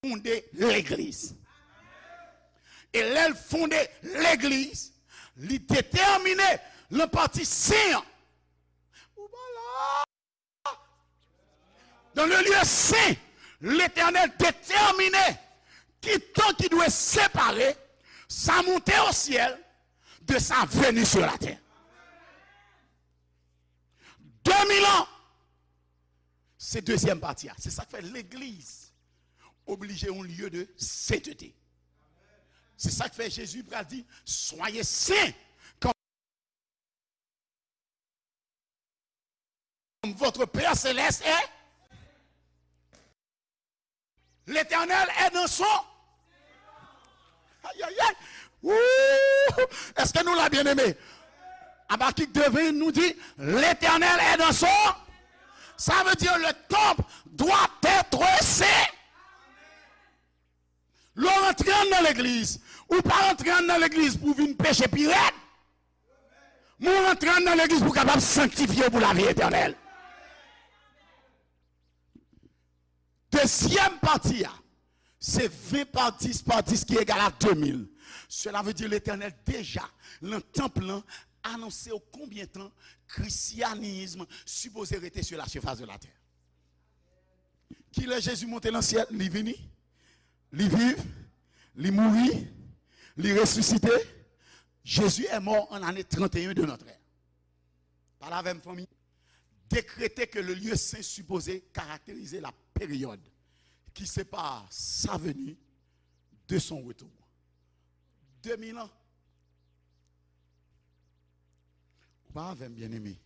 fonde legliz. E lè l fonde legliz, li detèmine nan pati sen an. Ou pa la. Dans le lieu saint, Letènèl detèmine ki qui doit séparer sa montée au ciel de sa venue sur la terre. De mil an, se dezyèm pati a. Se sa k fè legliz oblije yon lye de sentete. Se sa k fè Jezi pral di, soyez saints comme votre Père céleste est. L'Éternel est dans son. Aïe, aïe, aïe. Ouh! Est-ce que nous la bien aimé? Habacuc deux vingt nous dit, l'Éternel est dans son. Ça veut dire le temple doit être saint. Lè w rantre anndan legliz, ou pa rantre anndan legliz pou w vin peche pi rèd. Men w rantre anndan legliz pou w kapab sanktifye w pou lavi etènèl. Dezyèm pati a, se ven pa dis pa dis ki egal a de mil. Cela veut dire Letènèl deja, nan tanp lan, anonse w konbyen tan Christianisme sipoze rete sur la surface de la terre. Kilè Jezi monte nan syèl? Li vini, li viv, li mouri, li resisite. Jezi est mort en année trente et un de notre ère. Pale avè m, fanmi. Décréter que le lieu saint supposé caractériser la période qui sépare sa venue de son retour. De mil an. Ou pa avè m, byeneme.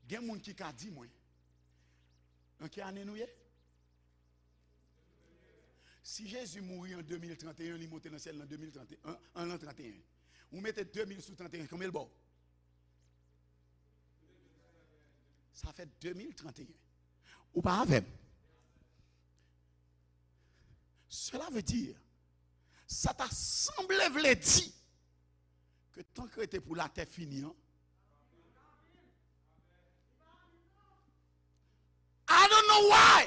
Gen moun ki ka di mwen, nan ki ane nou ye? Si Jezi mouri an de mil trant e en, li monte nan syèl nan de mil trant e en, an, an lan trant e en. Ou mete de mil sou trant e en, konbyen l ba w? Sa fè de mil trant e en. Ou pa avè m? Cela veut dire, sa ta sanble vle di ke tan k rete pou latè fini an, I don't know why.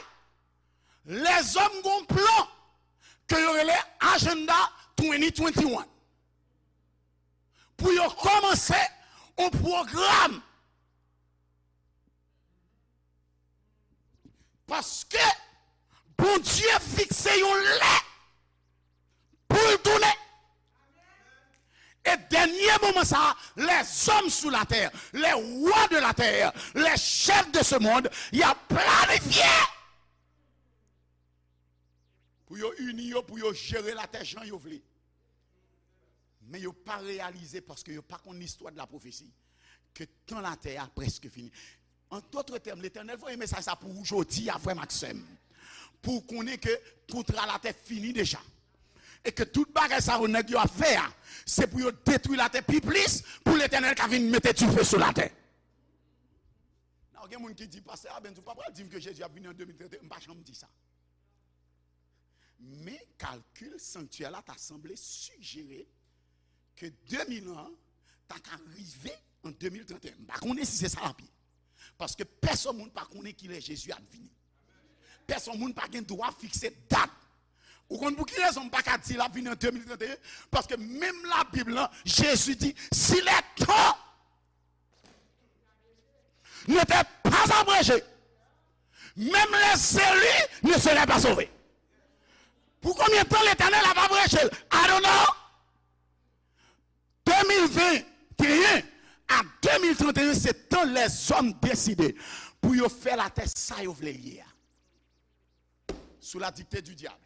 Lèzòm gon plan ke yo rele Agenda twenty twenty-one. Pou yo kòmanse yon pwogram. Paske Bondye fikse yon lè pou l tounen. E dènye moman sa a, les hommes sur la terre, les rois de la terre, les chefs de ce monde, y ap planifye pou yo ini yo, pou yo jere latè jan yo vle. Men yo pa reyalize, paske yo pa konn listwa de la pwofesi, ke tan latè a prèske fini. An dòt tèm, Letènèl voye mesaj sa pou ou jodi a, frè m ak sè m. Pou w konnen ke kontra latè fini deja. E ke tout bagay sa yo nèg yo ap fè a, se pou yo detwi latè pi plis, pou Letènèl ka vin mete dife sou latè. Nan, gen moun ki di, pastè Abens, ou pa pral di m ke Jezi ap vini an de mil trant e en, m pa janm di sa. Men kalkil sanktyè la ta sanble sijere ke de mil an ta ka rive an de mil trant e en. M pa konnen si se sa l ap ye. Paske pèsonn moun pa konnen kilè Jezi ap vini. Pèsonn moun pa gen dwa fikse dat. Ou konn pou ki rezon m pa ka di l ap vini an de mil trant e en? Paske menm Labib lan, Jezi di, si les temps n'étaient pas abrégés, même les élus ne seraient pas sauvés. Pou konbyen tan Letènèl ap abreje l? I don't know. De mil venteyen a de mil trant e en, se tan lèzòm deside pou yo fè latè sa yo vle l ye a. Sous la dictée du diable.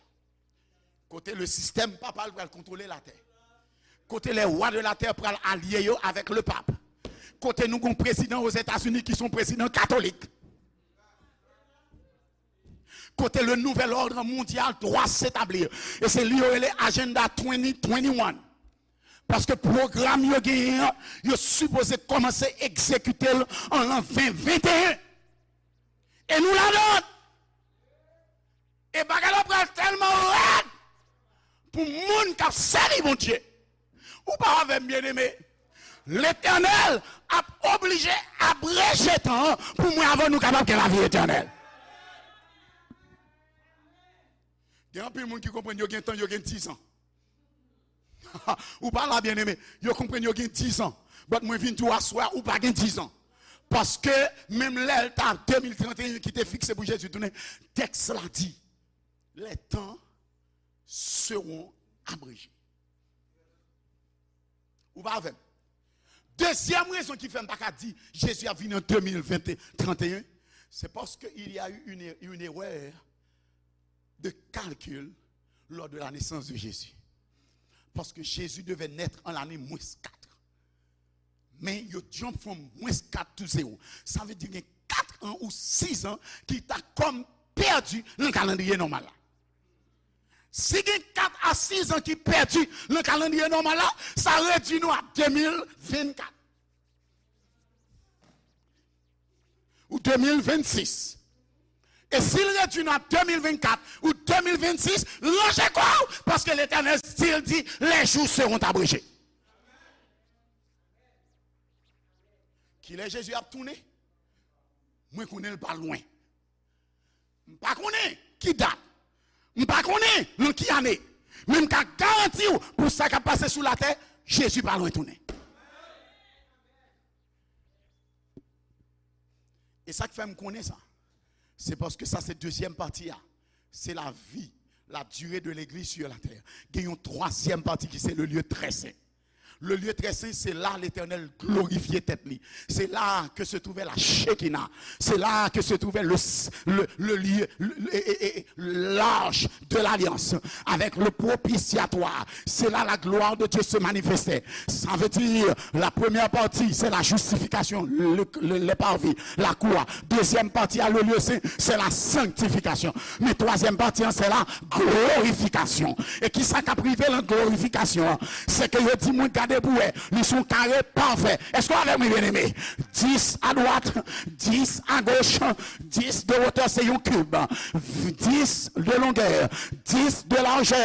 Kote le sistèm papal pral kontwole latè. Kote les rois de la terre pral alye yo avèk le pape. Kote nou gon prezidan Ozetazini ki se yon prezidan katolik. Kote le nouvel ordre mondial doit s'établir. E se li yo rele Agenda twenty twenty-one. Paske pwogram yo genyen an, yo sipoze kòmanse egzekite l an lan ven venteyen. E nou ladan l. E bagay la pral tèlman rèd pou moun k ap sèvi Bondye. Ou pa avè m, byeneme? Letènèl ap oblije abreje tan an pou mwen avè w nou kapab gen lavi etènèl. Gen anpil moun ki konprann yo gen tan, yo gen dizan. Ou pa la, byeneme. Yo konprann yo gen dizan. But mwen vin di w aswè a, ou pa gen dizan. Paske menm lè l ta de mil trant e en ki te fikse pou Jezi tounen, tèks la di, les temps seront abrégées. Ou pa avè m? Dezyèm rezon ki fè m pa ka di Jezi ap vini an de mil ven, trant e en, c'est parce que il y a eu une, une erreur de calcul lors de la naissance de Jésus. Parce que Jésus devait naître en l'année moins quatre. Men yo jump from moins quatre to zéro. Sa vle di gen kat an ou sis an ki ta kòm pèdi nan kalandriye nòmal la. Si gen kat a sis an ki pèdi nan kalandriye nòmal la, sa redui nou a de mil ven kat. Ou de mil ven sis. E si l redui nou a de mil ven kat ou de mil ven sis, ranje kò w, paske Letènèl still di, les jours seront abrégés. Kilè Jezi ap tounen? Mwen konnen l pa lwen. M pa konnen ki dat. M pa konnen nan ki ane. Men m ka garanti w, pou sa k ap pase sou latè, Jezi pa lwen tounen. E sa k fè m konnen sa, se paske sa se dezyèm pati a. Se la vie, la durée de l'église sur la terre. Gen yon twazyèm pati ki se le lieu très saint. Le lieu très saint, c'est là l'Éternel glorifiait tête li. C'est là que se trouvait la Shekinah. C'est là que se trouvait le, le, le lieu, le, le- et- et- et l'arche de l'alliance avec le propitiatoire. C'est là la gloire de Dieu se manifestait. Ça veut dire, la première partie, c'est la justification, le, le, le parvis, la croix. Deuxième partie, à le lieu saint, c'est la sanctification. Men twazyèm pati an, se la glorifikasyon. E ki sa k ap rive nan glorifikasyon an? Se ke yo di moun gade pou wè, li se yon kare pafè. Èske w avè mwen, byeneme? Dis a dwat, dis a goch, dis de wotè, se yon kib. Dis de longè, dis de lajè,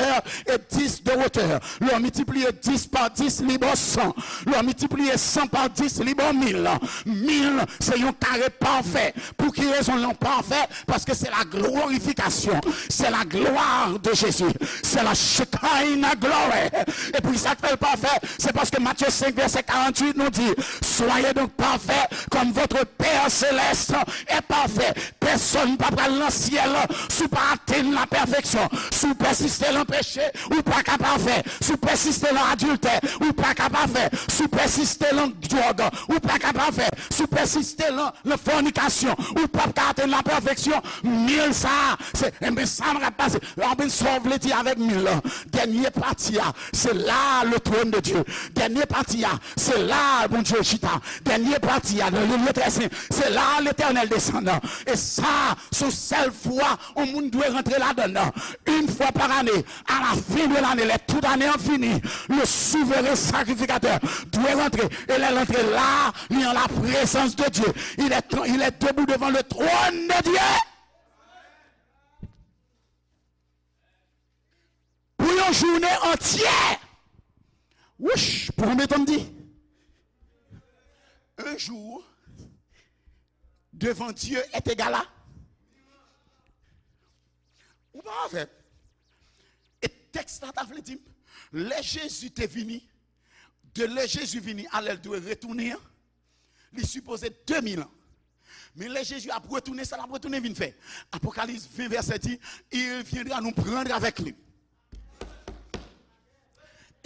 e dis de wotè. Lè w miltipliye dis pa dis, li ba w san. Lè w miltipliye san pa dis, li ba w mil. Mil, se yon kare pafè. Pou ki rezon l pafè? Paske se la glorifikasyon, se la gloire de Jésus, se la Shekinah glory. E pou sa k fè l pafè, se paske Matthieu cinq verset quarante-huit nou di, soyez donc parfaits comme votre Père céleste est parfait. Pèsonn pa pral nan syèl si w pa atenn la pèfeksyon. Si w pèsiste nan peche, ou pa ka pafè. Si w pèsiste nan adiltè, ou pa ka pafè. Si w pèsiste nan dwòg, ou pa ka pafè. Si w pèsiste nan nan fònikasyon, ou p ap ka atenn la pèfeksyon. Mil sa a, se, enben, sa m ap pase. Enben, sa w vle di avèk mil lan? Dènye pati a, se la le trône de Dieu. Dènye pati a, se la Bondye chita. Dènye pati a, nan le lieu très saint, se la Letènèl desann. E sa, se yon sèl fwa yon moun dwe rantre ladann. Une fois par année, à la fin de l'année, lè tout ane an fini, le souverain sacrificateur dwe rantre. E lè l antre la, li an la prezans de Dye. Il est, il est debout devant le trône de Dieu. Pou yon jounen antyè. Wouch, pou konbyen tan m di? Un jour devant Dieu est égal à. Ou pa avè m? E tèks la ta vle di m, lè Jezi te vini, de lè Jezi vini a lè l dwe retounen an, li sipoze de mil an. Men lè Jezi ap retounen, sa l ap retounen vin fè? Apocalypse vingt verset dix, il viendra nous prendre avec lui.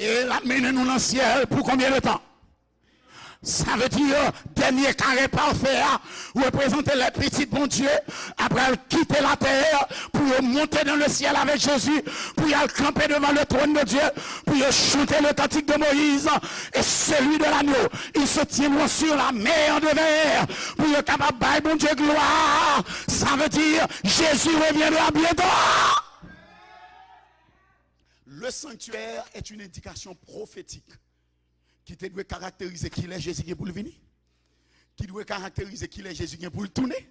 E l ap mennen nou nan syèl pou konbyen de tan? Sa vle di, dènye kare pafè a reprezante lè pitit Bondye ap pral kite latè pou yo monte dans le ciel avec Jésus, pou y al kanpe devan le trône de Dieu, pou yo chante le cantique de Moïse et celui de l'agneau. Ils se tiendront sur la mer de verre pou yo kapab bay Bondye glwa. Sa vle di, Jésus reviendra bientôt. Le sanctuaire est une indication prophétique ki te dwe karakterize kilè Jezi gen pou l vini, ki dwe karakterize kilè Jezi gen pou l tounen,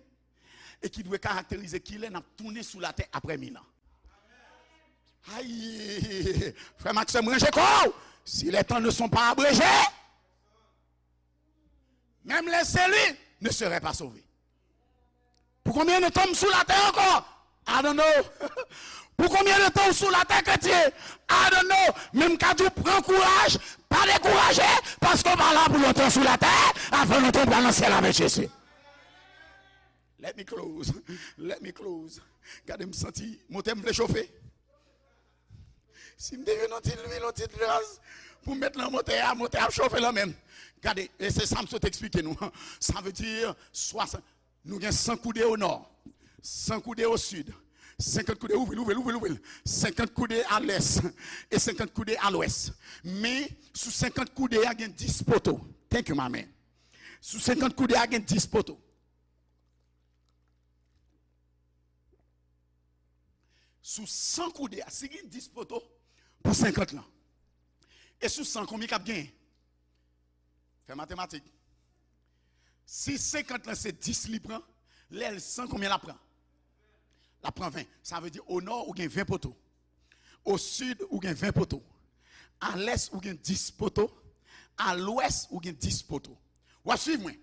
e ki dwe karakterize kilè n ap tounen sou latè apre mil an. Ay, frè m ak sè m, ranje kò w. Si les temps ne sont pas abrégés, même les élus ne seraient pas sauvés. Pou konbyen de tan m sou latè ankò? I don't know. Pou konbyen de tan w sou latè, kretyen? I don't know. Men m ka di w, pran kouraj, pa dekouraje, paske w pa la pou lontan sou latè, avan lontan w pral nan syèl avèk Jezi. Let me close. Let me close. Gade, m santi motè m vle chofe. Si m te jwenn yon ti lwil, yon ti gaz pou m met nan motè a, motè a ap chofe nan men m. Gade, e se sa m sot eksplike nou. Sa vle di, swasan, nou gen san koude o nò, san koude o sid, senkant koude, ouvri l, ouvri l, ouvri l, ouvri l, senkant koude a lès e senkant koude a lwès. Men, sou senkant koude a, gen dis poto. Thank you, my man. Sou senkant koude a, gen dis poto. Sou san koude a, si gen dis poto pou senkant lan, e sou san, konbyen k ap genyen? Fè matematik. Si senkant lan se dis li pran, lè l san, konbyen l ap pran? L ap pran ven. Sa vle di, o nò, ou gen ven poto. O sid, ou gen ven poto. A lès, ou gen dis poto. A lwès, ou gen dis poto. W ap swiv mwen?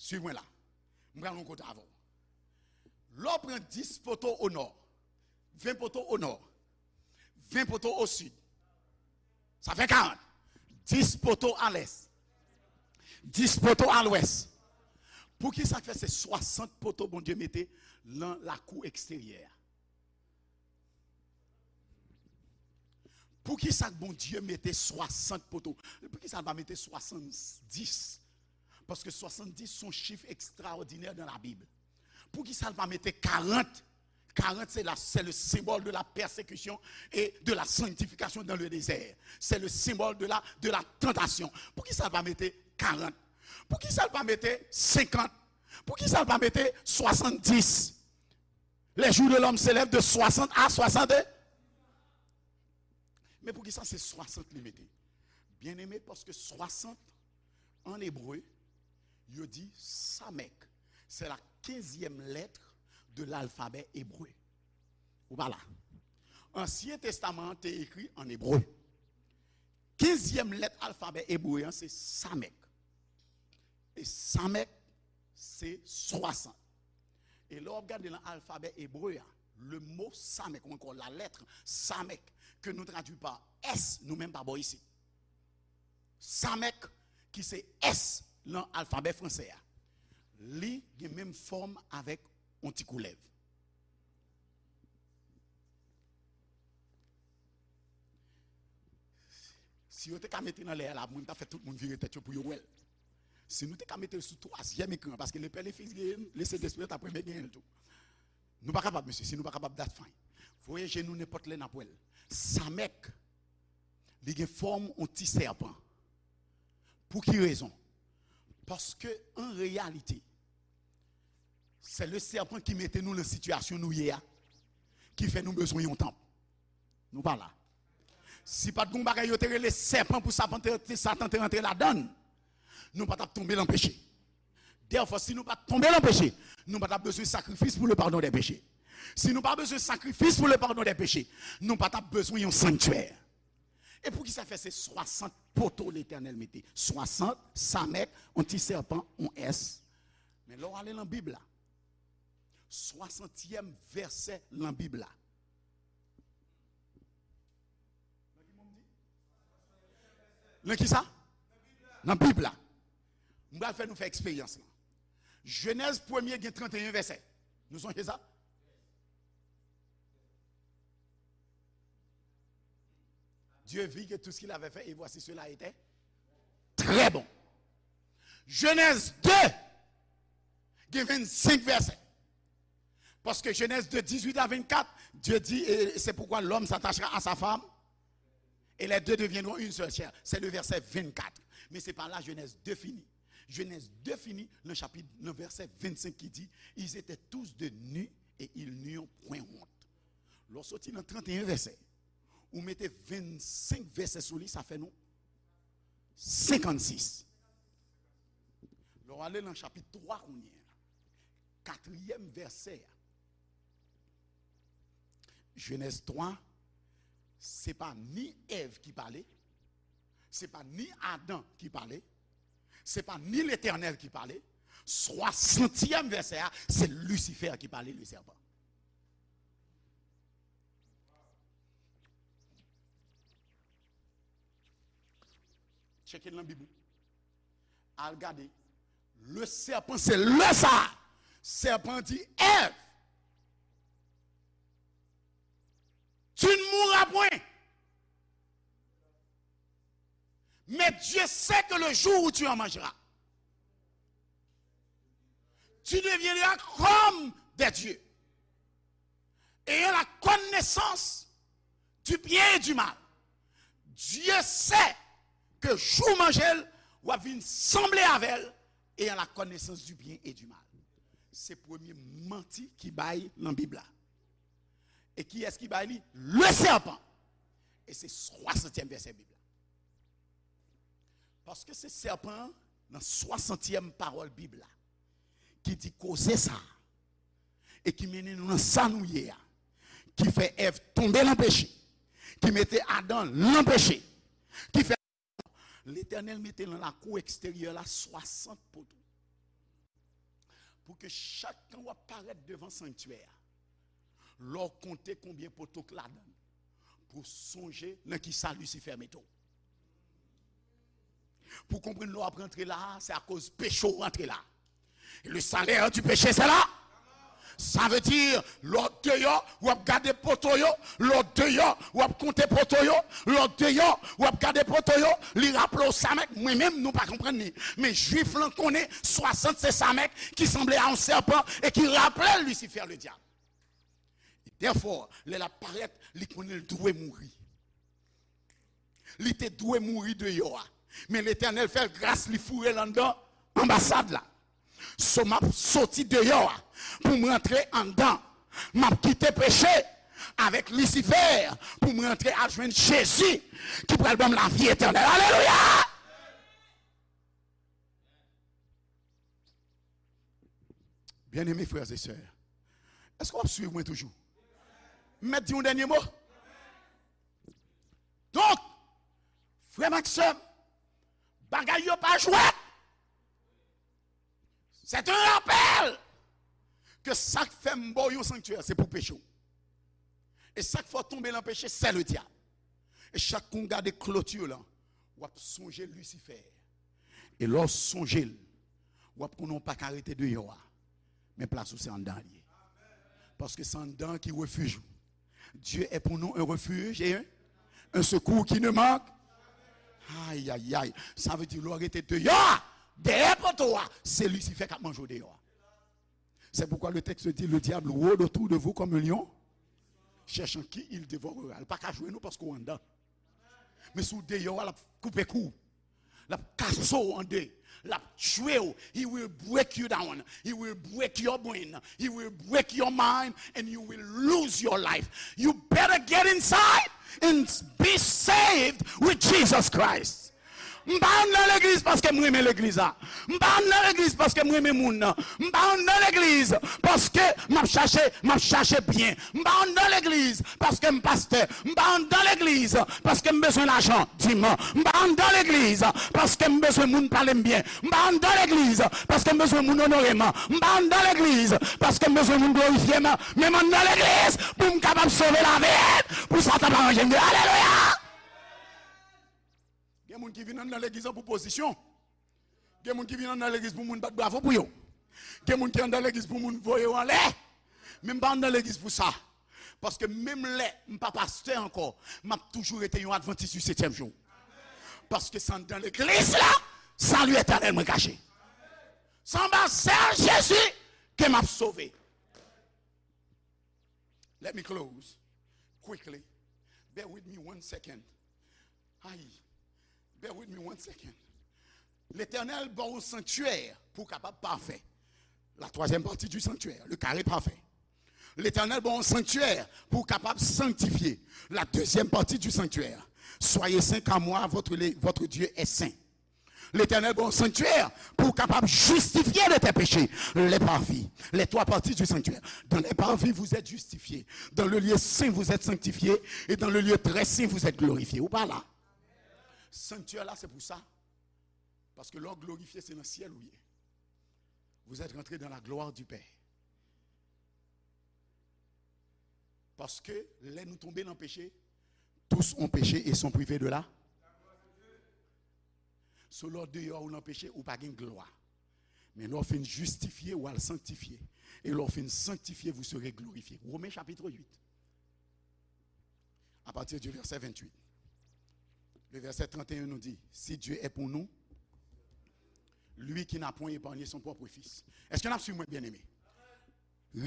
Swiv mwen la. M pral yon kote avè w. Lè w pran dis poto o nò, ven poto o nò, ven poto o sid, sa fè karant. Dis poto a lès, dis poto a lwès. Poukisa k fè se swasant poto Bondye mete nan lakou eksteryè a? Poukisa k Bondye mete swasant poto? Poukisa l pa mete swasanndis? Paske swasanndis se yon chif ekstraòdinè nan Labib. Poukisa l pa mete karant? Karant, c'est la, c'est le symbole de la persécution et de la sanctification dans le désert. C'est le symbole de la, de la tentation. Poukisa l pa mete karant? Poukisa l pa mete senkant? Poukisa l pa mete swasanndis? Les jours de l'homme s'élèvent de soixante à soixante. Men poukisa se swasant li mete? Byeneme, paske swasant, an ebre, yo di Samek. C'est la quinzième lettre de l'alphabet hébreu. Ou pa la. Ansyen Testaman an te ekri an ebre. Kenzyèm lèt alfabè ebre an se Samek. E Samek, se swasant. E lè w ap gade nan alfabè ebre a, le mot Samek, ou ankò la lettre Samek, ke nou tradui pa S, nou menm pa bò isit. Samek, ki se S nan alfabè franse a, li gen menm fòm avèk yon ti koulèv. Si yo te ka mete l anlè a la, mwen, m t ap fè tout moun vire tèt yo pou yo wè l. Si nou te ka mete l sou twazyèm ekran, paske le Père, le Fils genyen l, le Sentespri t ap renmen genyen l tou. Nou pa kapab, mesye, si nou pa kapab, that's fine. Voye je nou nenpòt lè, n ap wè l. Samek, li gen fòm yon ti sèpan. Pou ki rezon? Paske, an reyalite, se le sèpan ki mete nou nan sitiyasyon nou ye a, ki fè nou bezwen yon tanp. Nou pa la. Si pa t gen yon bagay yo te rele sèpan pou Satan te, Satan te rantre ladan l, nou pa t ap tonbe nan peche. Dèfwa, si nou pa t tonbe nan peche, nou pa t ap bezwen sakrifis pou le pardon des péchés. Si nou pa bezwen sakrifis pou le pardon des péchés, nou pa t ap bezwen yon sanktyè. E poukisa fè se swasant poto Letènèl mete? Swasant, Samek, yon ti sèpan, yon S. Men lè w ale nan Bib la, swasantyèm vèsè nan Bib la. Nan ki sa? Nan Bib la. M pral fè nou fè eksperyans lan. Jenèz premye gen tranteyen vèsè. Nou sonje sa? Dieu vit que tout ce qu'il avait fait, et voici cela était très bon. Jenèz de gen vennsenk vèsè. Parce que Genèse deux, dix-huit à vingt-quatre, Dieu dit, et c'est pourquoi l'homme s'attachera à sa femme, et les deux deviendront une seule chair. C'est le verset vingt-quatre. Men se pa la Genèse deux fini. Genèse deux fini nan chapit, nan vèsè vennsenk ki di, ils étaient tous deux nus et ils n'eurent point honte. Lè w soti nan tranteyen vèsè, ou mete vennsenk vèsè sou li, sa fè nou senkannsis. Lè w ale nan chapit twa kounye a, katriyèm vèsè a, Jenèz twa, se pa ni Èv ki pale, se pa ni Adan ki pale, se pa ni Letènèl ki pale. Swasantyèm vèsè a, se Lisifè ki pale, le sèpan. Tcheke l nan Bib ou. Al gade. Le sèpan, se le sa. Sèpan di, Èv, tu ne mourras Pas point. Mais Dieu sait que le jour où tu en mangeras, tu deviendras comme des dieux, ayant la connaissance du bien et du mal. Dieu sait que jou w manje l, w ap vin sanble avè l, ayant la connaissance du bien et du mal. Se premye manti ki bay nan Bib la. E kiyès ki bay li? Le serpent. E se swasantyèm vèsè Bib la. Paske se sèpan an, nan swasantyèm pawòl Bib la, ki di koze sa a, e ki mennen nou nan sa nou ye a, ki fè Èv tonbe nan peche, ki mete Adan nan peche, ki fè Letènèl mete nan lakou eksteryè la swasant poto. Pou ke chak tan w ap parèt devan sanktyè a, lè w konte konbyen poto k ladan l, pou w sonje nan ki sa Lisifè mete w. Pou w konprann lè w ap rantre la a, se akoz peche w rantre la. Le salaire du péché, c'est la. Sa vle di, lè w deyò, w ap gade poto yo, lè w deyò, w ap konte poto yo, lè w deyò, w ap gade poto yo, li raple w sa mèg, mwen menm, nou pa konprann li. Men Jwif lan konnen swasant se sa mèg ki sanble a yon sèpan e ki raple l Lisifè, le dyab. Therefore, lè l ap parèt, li konnen l dwe mouri. Li te dwe mouri deyò a. Men Letènèl fè l gras, li foure l anndan anbasad la. So, m ap soti deyò a pou m rantre anndan. M ap kite peche avèk Lisifè pou m rantre al jwenn Jezi ki pral ban m lavi etènèl. Alelouya! Byeneme frè e sè, èske w ap swiv mwen toujou? M mèt di yon dènye mo? Donk, frè m ak sè m, bagay yo pa jwèt. C'est un rappel ke sa k fè m ba w yon sanktyè, se pou peche w. E sa k fè w tonbe nan peche, c'est le diable. E chak kou w gade kloti lan, w ap sonje Lisifè. E lè w sonje l, w ap konnen w pa ka rete deyò a. Men plas ou se anndan l ye. Paske se anndan an ki refij ou. Dieu est pour nous un refuge et un, un secours qui ne manque. Ay, ay, ay. Sa vle di, lè w rete deyò a, dèyè poto a, se Lisifè k ap manje w deyò a. C'est pourquoi le texte dit, le diable rôde autour de vous comme un lion, cherchant qui il dévorera. Li pa ka jwenn ou paske w anndan. Men si w deyò a, l ap koupe kou w. L ap kase w an de. L ap tchwe w. He will break you down. He will break your brain. He will break your mind and you will lose your life. You better get inside and be saved with Jesus Christ. M pa anndan legliz paske m renmen legliz la. M pa anndan legliz paske m renmen moun nan. M pa anndan legliz paske m ap chache, m ap chache byen. M pa anndan legliz paske m pastè. M pa anndan legliz paske m bezwen lajan, dim. M pa anndan legliz paske m bezwen moun pale m byen. M pa anndan legliz paske m bezwen moun onore m. M pa anndan legliz paske m bezwen moun glorifye m. Men m anndan legliz pou m kapab sove lavi m, pou Satan pa manje m deyò. Alelouya! Gen moun ki vin anndan legliz lan pou pozisyon. Gen moun ki vin anndan legliz pou moun bat bravo pou yo. Gen moun ki anndan legliz pou moun voye yo anlè. Men m pa anndan legliz pou sa. Paske menm lè m pa pastè ankò, m ap toujou rete yon advantis di setyèm jou. Paske se anndan legliz la, sali etènèl mwen kache. Se anba sèl Jezi ke m ap sove. Let me close quickly. Bear with me one second. Ay, bear with me one second. Letènèl ba w yon sanktyè pou w kapab pafè. La troisième partie du sanctuaire, le carré parfait. Letènèl ba w yon sanktyè pou w kapab sanktifye. La deuxième partie du sanctuaire. Soyez saints car moi, votre, le- votre Dieu est saint. Letènèl ba w yon sanktyè pou w kapab jistifye de tes péchés. Le parvis, les trois parties du sanctuaire. Dans le parvis, vous êtes justifiés. Dans le lieu saint, vous êtes sanctifiés. Et dans le lieu très saint, vous êtes glorifiés. Ou pa la? Sanktyè la, se pou sa. Paske lè w glorifye, se nan syèl ou ye. Vous êtes rentrés dans la gloire du Père. Paske lè nou tonbe nan peche, tous ont péché et sont privés de la. So lè w deyò ou nan peche, ou pa gen glwa. Men lè w fin jistifye, w al sanktifye. E lè w fin sanktifye, vous serez glorifiés. Romains chapitre huit. à partir du verset vingt-huit. Le verset trente et un nous dit, si Dieu est pour nous, lui qui n'a point épargné son propre fils. Èske n ap swiv mwen, byeneme?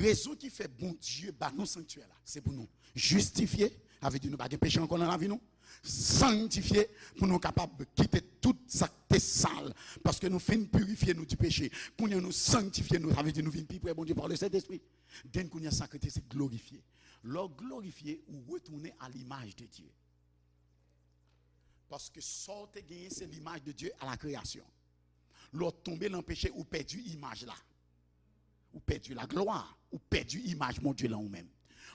Rezon ki fè Bondye ba nou sanktyè la, se pou nou jistifye, sa vle di nou pa gen peche ankò nan lavi nou, sanktifye, pou nou kapab kite tout sa k te sal, paske nou fin pirifye nou di peche. Kounye a nou sanktifye nou, sa vle di nou vin pi pre Bondye par le Saint-Esprit. Den kounye a sa k rete se glorifye. Lè w glorifye, ou retounen a limaj de Dye. Paske sa w te genyen se limaj de Dye a la kreyasyon. Lè w tonbe nan peche, ou pèdi imaj la. Ou pèdi laglwa, ou pèdi imaj Bondye lan ou menm.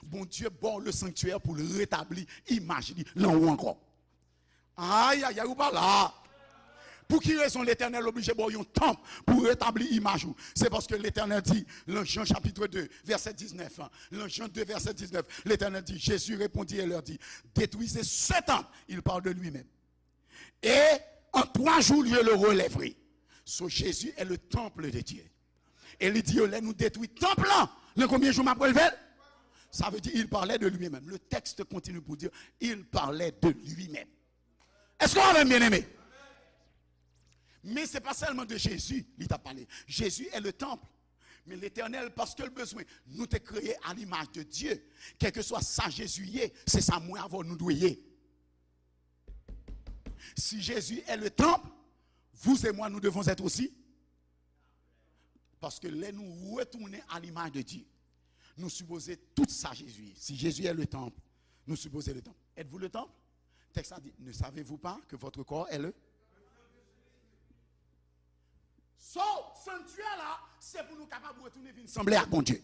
Bondye ba w le sanktyè pou l retabli imaj li lan ou ankò. Ayayay, ou pa la. Pou ki rezon Letènèl oblije ba w yon tanp pou retabli imaj ou? Se paske Letènèl di, lan Jan chapitre deux, verset dix-neuf, lan Jan deux, verset dix-neuf, Letènèl di, Jésus répondit et leur dit, détruisez ce temple, il parle de lui-même. Et en trois jours, je le relèverai. So, Jésus est le temple de Dieu. E li di yo, lè nou detwi tanp lan, nan konbyen jou m ap relve l? Sa vle di, il parlait de lui-même. Le texte continue pour dire, il parlait de lui-même. Èske w avè m, byeneme? Men se pa sèlman de Jezi li t ap pale. Jezi è le tanp. Men Letènèl, paske l bezwen nou te kreye a limaj de Dye, kèlkeswa sa Jezi ye, se sa mwen avè w nou dwe ye. Si Jésus est le temple, vous et moi, nous devons être aussi. Paske lè nou retounen a limaj de Dye, nou sipoze tout sa Jezi ye. Si Jezi è le tanp, nou sipoze le tanp. Êtes-vous le temple? Tèks la di, ne savez-vous pas que votre corps est le... So, sanktyè la, se pou nou kapab retounen vin sanble ak Bondye.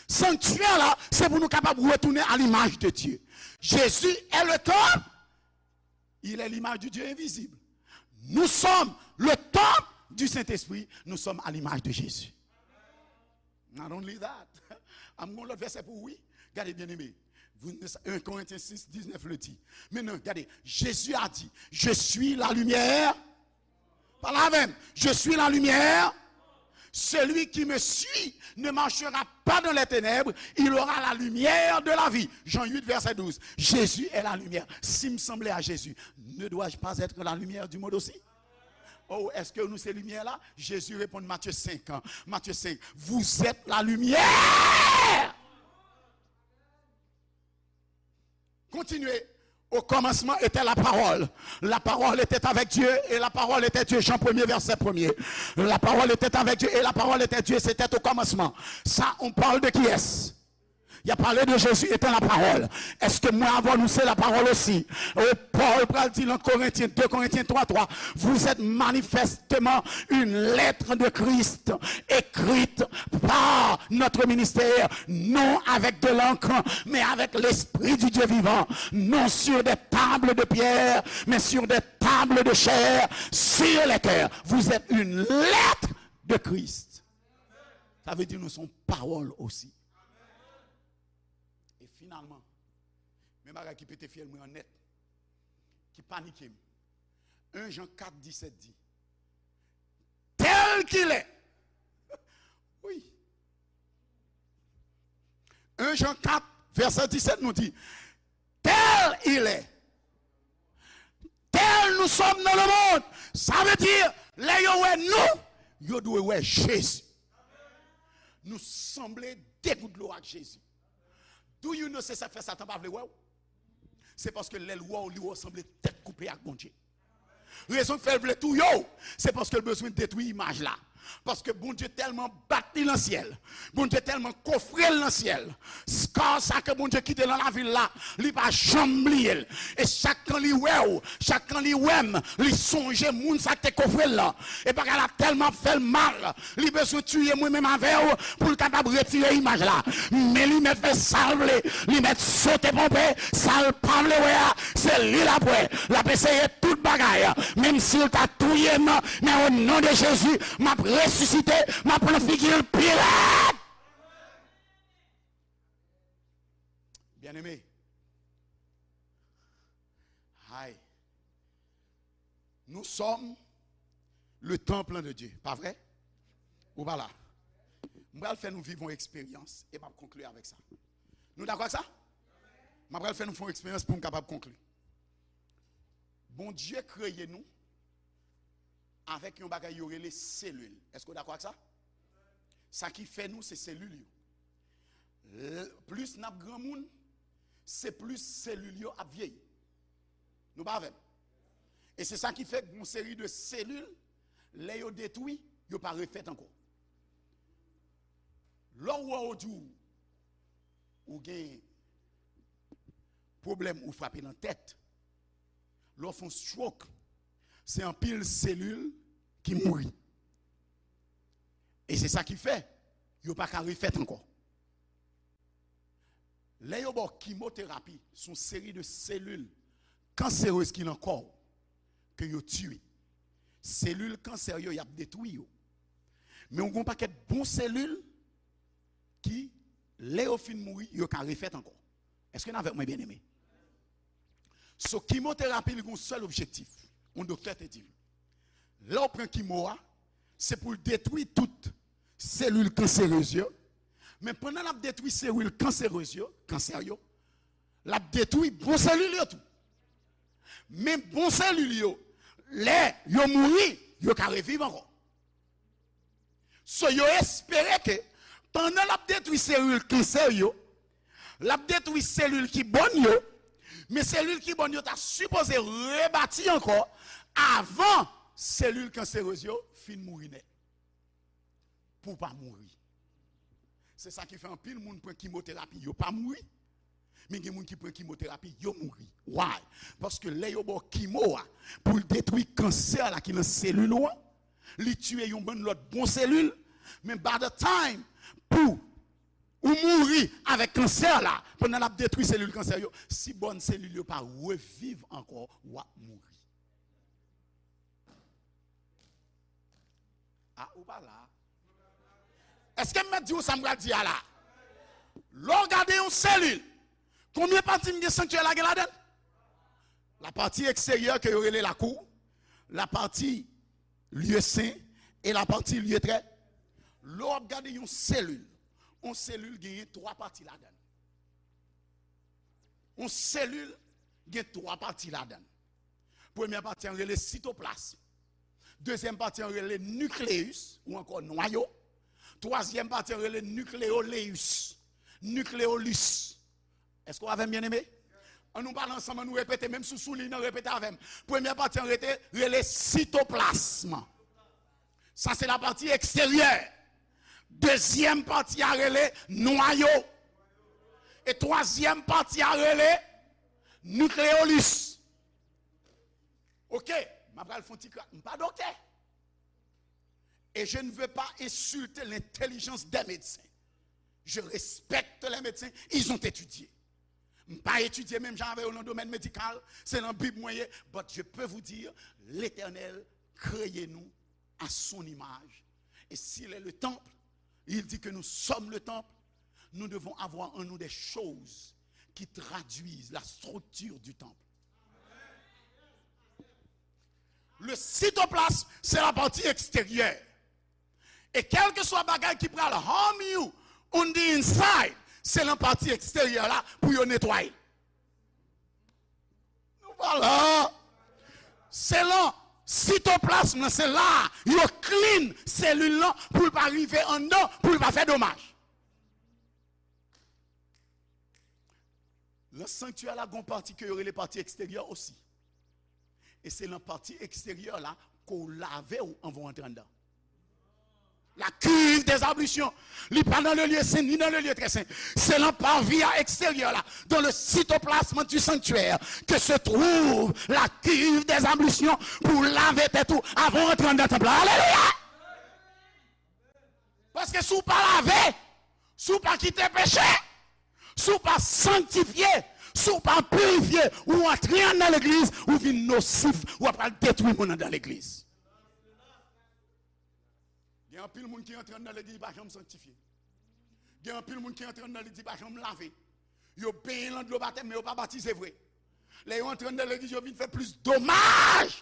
Sanktyè la, se pou nou kapab retounen a limaj de Dye. Jésus est le temple. Il est l'image du Dieu invisible. Nous sommes le temple du Saint-Esprit. Nous sommes à l'image de Jésus. Not only that. Am gon lòt vèsè pou ou, wi. Gade, byeneme. Un Corinthiens six, dix-neuf le dit. Maintenant, gade, Jésus a dit, je suis la lumière. Pale avè m. Je suis la lumière. Celui qui me suit ne marchera pas dans les ténèbres, il aura la lumière de la vie. Jean huit, verset douze. Jésus est la lumière. Si m sanble a Jezi, ne dois-je pas être la lumière du monde aussi? Oh, èske nou se limyè la? Jezi reponn Matye senk, Matye senk, vous êtes la lumière. Continuez. Au commencement était la parole. La parole était avec Dieu et la parole était Dieu. Jean premier, verset premier. La parole était avec Dieu et la parole était Dieu. C'était au commencement. Ça, on parle de qui est-ce? Il a parlé de Jésus étant la parole. Èske mwen avè w nou se la parole aussi? Oh, Paul pral di nan Corinthiens, deux Corinthiens trois trois, vous êtes manifestement une lettre de Christ écrite par notre ministère, non avec de l'encre, mais avec l'Esprit du Dieu vivant, non sur des tables de pierre, mais sur des tables de chair, sur les cœurs. Vous êtes une lettre de Christ. Sa vle di nou se yon pawòl osi. E finalman, men bagay ki pete fyèl mwen an nèt, ki panike m. Un Jean quatre, dix-sept di, tel qu'il est. Wi. Un Jean quatre, verset dix-sept nou di, tel il est. Tel nous sommes dans le monde. Sa vle di, lè yo wè nou, yo dwe wè Jezi. Nou sanble de gout dlo ak Jezi. Do you know se sa k fè Satan pa vle wè w? Se paske lè l wè w, li wè w sanble tèt koupe ak Bondye. Rezon k fè l vle touye w, se paske l bezwen detwi imaj la. Paske Bondye tèlman bat li nan syèl, Bondye tèlman kofre l nan syèl, scar sa ke Bondye kite nan lavi l la, li pa janm bliye l. E chak kan li wè w, chak kan li wè m, li sonje moun sa k te kofre l lan. E bagay la tèlman ap fè l mal, li bezwen tiye mwen menm avè w pou l kapab retire imaj la. Men li mèt fè sa l vle, li mèt sote ponpe, sa l pa vle wè a, se li l ap wè. L ap eseye tout bagay, menm si l ta touye m, men o non de Jezi, m ap resisite, m ap pran figi l pi rèd. Byeneme, ay, nous sommes le temple de Dieu, pa vre? Ou pa la? M pral fè nou viv yon eksperyans e m ap konkli avèk sa. Nou dakò ak sa? M ap pral fè nou fè yon eksperyans pou m kapab konkli. Bondye kreye nou avèk yon bagay yo rele selil. Èske w dakò ak sa? Sa ki fè nou, se selil yo. L-, plis n ap granmoun, se plis selil yo ap vyeyi. Nou pa avè m? E se sa ki fè gen yon seri de selil, lè yo detwi, yo pa refèt ankò. Lè w wè w di w, ou gen pwoblèm, ou frape nan tèt, lè w fè yon stroke, se anpil selil ki mouri. E se sa ki fè yo pa ka refèt ankò. Lè yo ba w kimoterapi, se yon seri de selil kanserez ki nan kò w ke yo tiye. Selil kansè yo, y ap detwi yo. Men w gen yon pakèt bon selil ki, lè yo fin mouri, yo ka refèt ankò. Èske n avèk mwen, byeneme? So, kimoterapi, li gen yon sèl objektif. Yon doktè te di m, lè w pran kimo a, se pou l detwi tout selil kanserez yo. Men pandan l ap detwi selil kanserez yo, kansè yo, l ap detwi bon selil yo tou. Men bon selil yo, lè yo mouri, yo ka reviv ankò. So, yo espere ke pandan l ap detwi selil kansè yo, l ap detwi selil ki bòn yo, men selil ki bòn yo ta sipoze rebati ankò avan selil kanserez yo fin mouri nèt. Pou w pa mouri. Se sa ki fè anpil moun pran kimoterapi, yo pa mouri. Men gen moun ki pran kimoterapi, yo mouri. Why? Paske lè yo ba w kimo a, pou l detwi kansè la ki nan selil ou an, li tiye yon bann lòt bon selil, men by the time pou ou mouri avèk kansè la, pandan l ap detwi selil kansè yo, si bòn selil yo pa reviv ankò, w ap mouri. A, ou pa la. Èske m mèt di w sa m pral di a la? Lè w gade yon selil, konbyen pati m gen sanktyè la gen ladan l? Lapati eksteryè ke yo rele lakou, lapati lye sen e lapati lye trè. Lè w ap gade yon selil, yon selil genyen twa pati ladan l. Yon selil gen twa pati ladan l. Premyè pati an rele sitoplasm. Dezyèm pati an rele nikleyis, ou ankò nwayo. Twazyèm pati an rele nikleyoleyis, nikleyolis. Èske w avè m, byeneme? An nou pale ansanm, an nou repete, menm si w sou liy nan, repete avè m. Premyè pati an rete, rele sitoplasm. Sa se lapati eksteryè. Dezyèm pati a rele nwayo. E twazyèm pati a rele nikleyolis. Ok, m ap pral fè yon ti kra-, m pa doktè. Et je ne veux pas insulter l'intelligence des médecins. Je respecte les médecins, ils ont étudié. M pa etidye menm jan avè yo nan domèn medikal, se nan Bib mwen ye, but je peux vous dire, Letènèl kreye nou à son image. Et s'il est le temple, il dit que nous sommes le temple, nous devons avoir en nous des choses qui traduisent la structure du temple. Le cytoplasme, c'est la partie extérieure. E kèlkeswa bagay ki pral harm you on the inside, se nan pati eksteryè la pou yo netwaye. Nou pa la. Se lan sitoplasm nan, se la yo clean selil lan pou l pa rive anndan, pou l pa fè domaj. Lan sanktyè la, gon pati ke yo rele pati eksteryè osi. E se lan pati eksteryè la ke w lave w anvan w antre anndan. La cuve des ablutions. Li pa dans le lieu saint ni dans le lieu très saint. Se lan parvis a eksteryè la, dans le cytoplasme du sanctuaire, que se trouve la cuve des ablutions, pou w lave tèt ou avan w antre anndan tanp la. Alelouya! Paske si w pa lave, si w pa kite peche, si w pa sanktifye, si w pa pirifye, ou antre anndan legliz, ou vin nosif, ou ap pral detwi moun anndan legliz. Gen anpil moun ki antre anndan legliz, li pa janm sanktifye. Gen anpil moun ki antre anndan legliz, li pa janm lave. Yo benyen lan dlo batèm, men yo pa batize vre. Lè yo antre anndan legliz, yo vin fè plis domaj.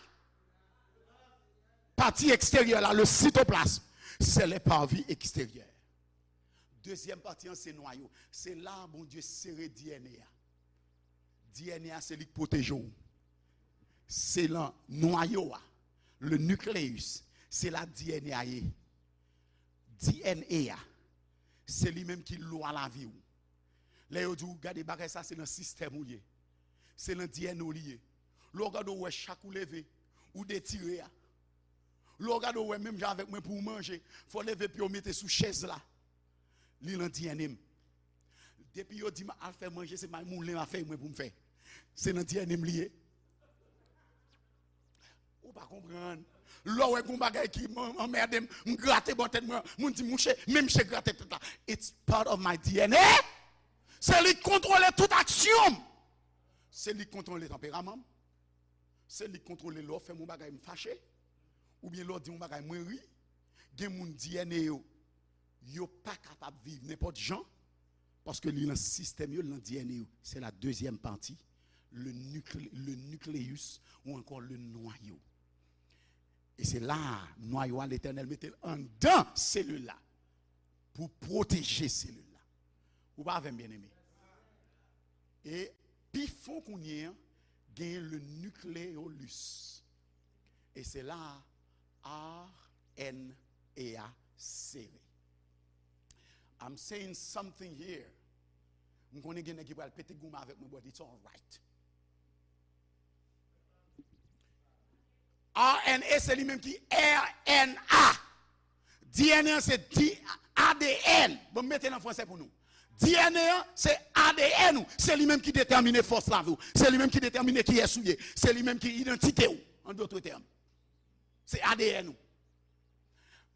Pati eksteryè la, le cytoplasme, c'est les parvis extérieurs. Dezyèm pati an, se nwayo. Se la Bondye sere D N A a. D N A a se li k pwoteje w. Se lan nwayo a, le nucleus, se la D N A a ye. D N A a, se li menm ki lwa lavi w. Lè yo di w gade bagay sa, se nan sistèm ou l ye. Se nan D N A w li ye. Lè w gade w wè chak ou leve, ou detire a. Lè w gade w wè menm jan avèk mwen pou w manje, fò w leve pye w mete sou chèz la. Li nan D N A m. Depi yo di m al fè manje, se may moulen m ap fè mwen pou m fè. Se nan D N A m li ye. Ou pa konprann. Lè w wè gon bagay ki m- anmède m, m grate bò tèt mwen, moun di m, "Mouche, men mouche grate tèt la." It's part of my D N A. Se li k kontwole tout aksyon m. Se li k kontwole tanperaman m. Se li k kontwole lè w fè m yon bagay m fache. Oubyen lè w di m yon bagay mwen ri. Gen moun D N A yo, yo pa kapab viv nenpòt jan. Paske li nan sistèm yo, li nan D N A yo. Se la dezyèm pati, le nuclé- le nucleus ou ankò le noyau. E se la a, nwayo a, Letènèl mete l anndan selil la pou pwoteje selil la. Ou pa avè m, byeneme? E pi fon kounye a, genyen le nucleolus. E se la a R N A a sere. I'm saying something here. M konnen gen nèg ki pral pete goumen avèk mwen, but it's alright. R N A se li menm ki R N A. D N A se di- A D N. Bon, m mete l an fransè pou nou. D N A se A D N ou. Se li menm ki detèmine fòs lavi w. Se li menm ki detèmine kiyès ou ye. Se li menm ki idantite w, an dòt tèm. Se A D N ou.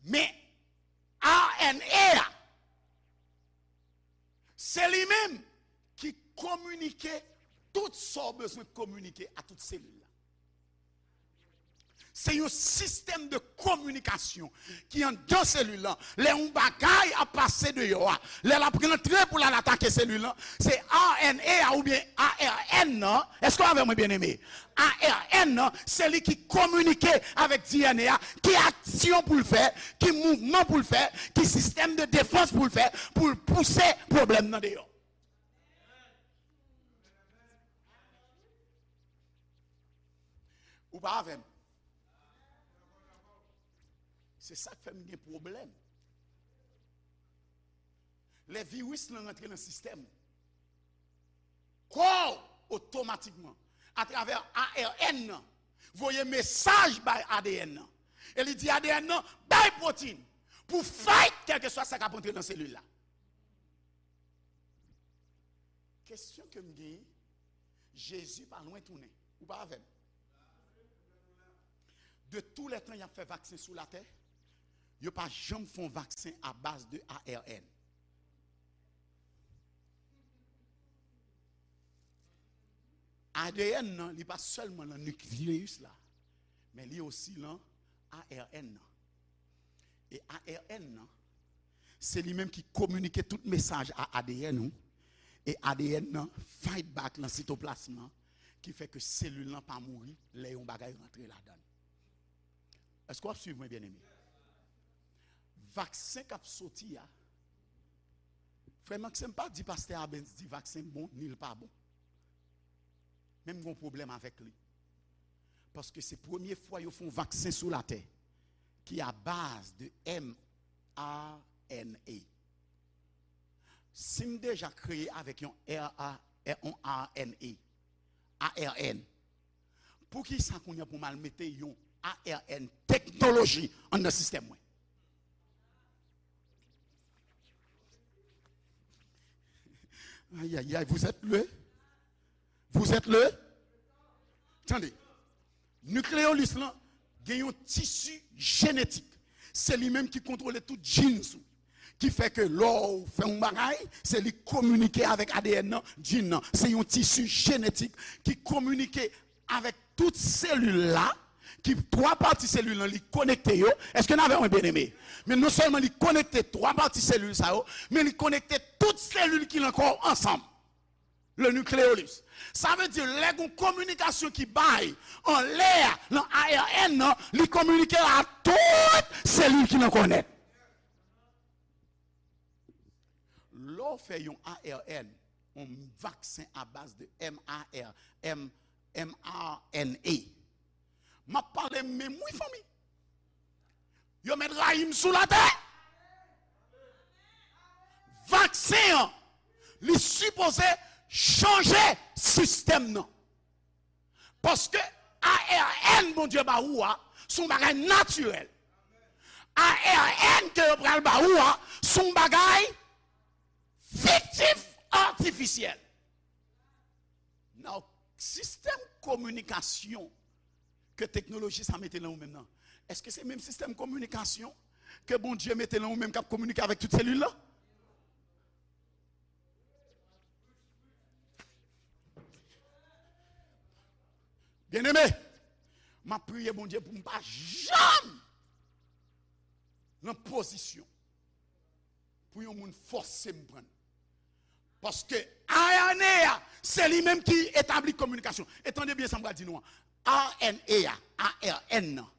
Men, R N A a, se li menm ki kominike tout sa w bezwen kominike a tout selil la. Se yon sistèm de kominikasyon ki anndan selil lan. Lè yon bagay ap pase deyò a, lè l ap rantre pou l al atake selil lan, se R N A a oubyen A R N nan. Èske w avè mwen, byeneme? A R N nan, se li ki kominike avèk D N A a, ki aksyon pou l fè, ki mouvman pou l fè, ki sistèm de defans pou l fè, pou l pouse pwoblèm nan deyò. Ou pa avè m? Se sa k fè m gen pwoblèm. Lè viris lan rantre nan sistèm ou, kò w otomatikman, atravè A R N nan, voye mesaj bay A D N nan. E li di A D N nan, "Bay pwotin pou fight kèlkeswa sa k ap antre nan selil la." Kesyon ke m genyen, Jezi pa lwen tounen. Ou pa avè m? De tou lè tan y ap fè vaksen sou latè, yo pa janm fè yon vaksen a baz de A R N. A D N nan, li pa sèlman nan nikleyis la, men li osi nan A R N nan. E A R N nan, se li menm ki kominike tout mesaj a A D N ou, e A D N nan fight back lan sitoplasm lan, ki fè ke selil lan pa mouri lè yon bagay rantre ladan l. Èske w ap swiv mwen, byeneme? Vaksen k ap soti a, frè Maxime pa di pastè Abens di vaksen bon, ni l pa bon. Men m gon pwoblèm avèk li. Paske se premye fwa yo fè yon vaksen sou latè ki a baz de M R N A. Si m deja kreye avèk yon R A, yon R N A, A R N, poukisa kounye a pou m al mete yon A R N teknoloji anndan sistèm mwen? Aïe, aïe, aïe, vous êtes le? Vous êtes le? Tande. Nikleyis lan gen yon tisi jenetik. Se li menm ki kontwole tout genes ou. Ki fè ke lè w fè yon bagay, se li k kominike avèk A D N nan, gene nan. Se yon tisi jenetik ki kominike avèk tout selil la, ki twa pati selil lan li konekte yo. Èske n avè mwen, byeneme? Men non sèlman li konekte twa pati selil sa yo, men li konekte tout selil ki nan kò w ansanm. Le nucleolus. Sa vle di, lè gon kominikasyon ki bay anlè a nan A R N nan, li kominike a tout selil ki nan kò nèt. Lè w fè yon A R N, yon vaksen a baz de M A R, M, M R N A. M ap pale menm wi fanmi. Yo mèt rayi m sou latè. Vaksen an, li sipoze chanje sistèm nan. Paske A R N Bondye ba ou a, se yon bagay natirèl. A R N ke yo pral ba ou a, se yon bagay fiktif, atifisyèl. Nan sistèm kominikasyon ke teknoloji sa mete nan ou menm nan, èske se menm sistèm kominikasyon ke Bondye mete nan ou menm k ap kominike avèk tout selil la? Byeneme, m ap priye Bondye pou m pa janm nan pozisyon pou yon moun fòse m pran. Paske A R N A a, se li menm ki etabli kominikasyon. E tande byen sa m pral di nou an. A R N A a, A R N nan,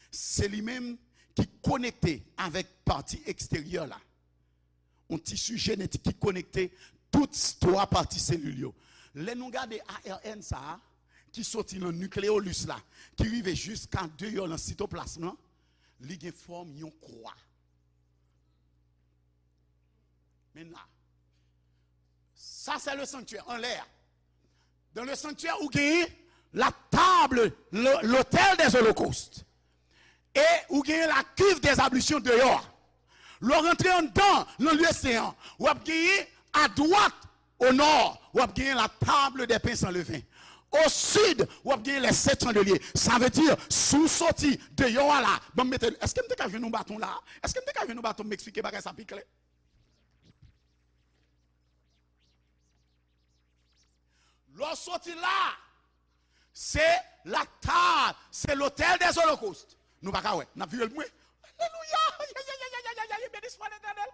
se li menm ki konekte avèk pati eksteryè la. Yon tisi jenetik ki konekte tout twa pati selil yo. Lè nou gade A R N sa a, ki soti nan nikleyolis la, ki rive jiska deyò nan sitoplasm lan, li gen fòm yon kwa. Men la. Sa se le sanctuaire, anlè a. Dans le sanctuaire, ou genyen la table, le- l'autel des holocaustes. E ou genyen la cuve des ablutions deyò a. Lè w rantre anndan, nan lye sen an, w ap genyen adwat, o nò, w ap genyen la table des pains sans levain. O sid, w ap genyen les sept chandeliers. Sa vle di, si w soti deyò a la, ban m mete, èske m te ka jwenn yon baton la? Èske m te ka jwenn yon baton, m eksplike bagay sa pi klè? Lè w soti la, se la table, se l'autel des holocaustes. Nou pa ka wè, n ap vire l pou mwen. Alelouya! Béni soit l'Éternel.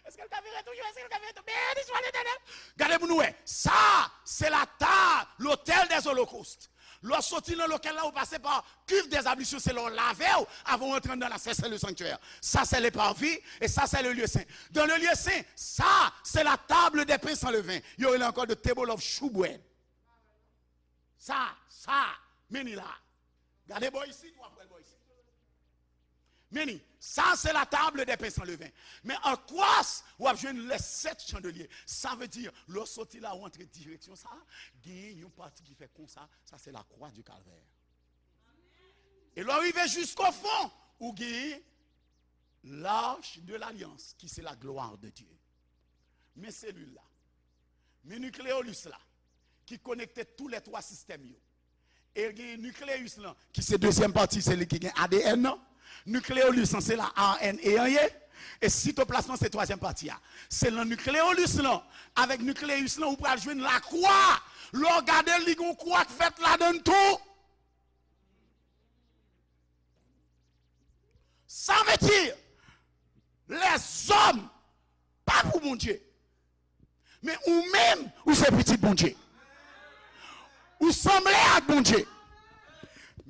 Èske l ka vire toujou? Èske l ka vire toujou? Béni soit l'Éternel. Gade pou nou wè. Sa, se la table, l'autel des holocaustes. Lè w soti nan lokèl la, ou pase pa cuve des ablutions, se lè w lave w avan w antre anndan la, se, se le sanctuaire. Ça, c'est le parvis, et ça, c'est le lieu saint. Dans le lieu saint, ça, c'est la table des pains sans levain. Yo rele ankò de table of shewbread. Sa, sa, men li la. Gade bò isit, w ap wè l bò isit. Men li, sa, se la table des pains sans levain. Men an kwas, w ap jwenn les sept chandeliers. Sa vle di, lè w soti la, w antre direksyon sa, genyen yon pati ki fè konsa, sa se la croix du calvaire. E lè w rive jisko fon, ou genyen l'arche de l'alliance, ki se la gloire de Dieu. Men selil la. Men nikleyolis la, ki konekte tou lè twa sistèm yo. E l gen nikleyis lan, ki se dezyèm pati, se li ki gen A D N nan. Nikleyolis lan, se la A R N A an ye. E sitoplasm lan, se twazyèm pati a. Se nan nikleyolis lan, avèk nikleyis lan, ou pral jwenn lakwa. Lè w gade l, li gen yon kwa k fèt ladan l tou. Sa vle di, lèzòm pa pou Bondye. Men ou menm, ou se pitit Bondye. Ou sanble ak Bondye.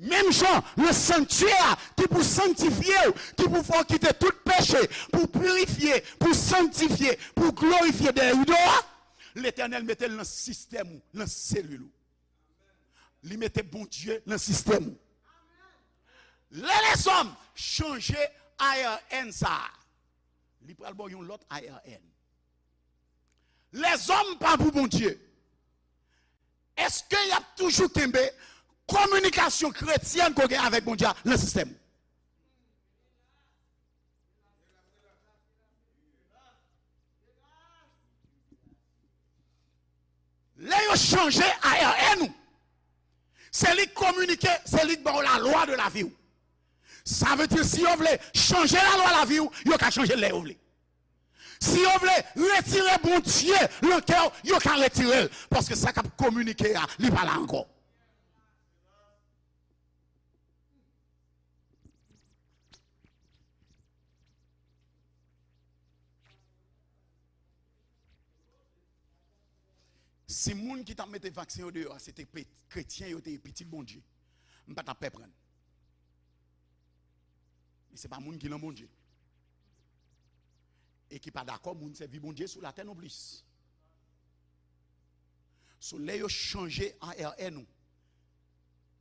Menm jan, nan sanktyè a, ki pou sanktifye w, ki pou fè w kite tout peche, pou pirifye, pou sanktifye, pou glorifye dèyè rido a, Letènèl mete l nan sistèm ou, nan selil ou. Li mete Bondye nan sistèm ou. Lè lèzòm chanje A R N sa a, li pral ba w yon lòt A R N. Lèzòm pa pou Bondye. Èske y ap toujou kenbe kominikasyon kretyèn ke w gen avèk Bondye a nan sistèm ou? Lè yo chanje A R N ou, se li k kominike, se li k ba w lalwa de lavi w. Sa vle di, si yo vle chanje lalwa lavi w, yo ka chanje l lè yo vle. Si yo vle retire Bondye nan kè w, yo ka retire l. Paske sa k ap kominike a, li pa la ankò. Si moun ki t ap mete vaksen yo deyò a, se te pe- kretyen yo te ye, pitit Bondye, m pa t ap pè pran l. Men se pa moun ki nan Bondye e ki pa dakò moun sèvi Bondye sou latè nonplis. So, lè yo chanje A R N ou,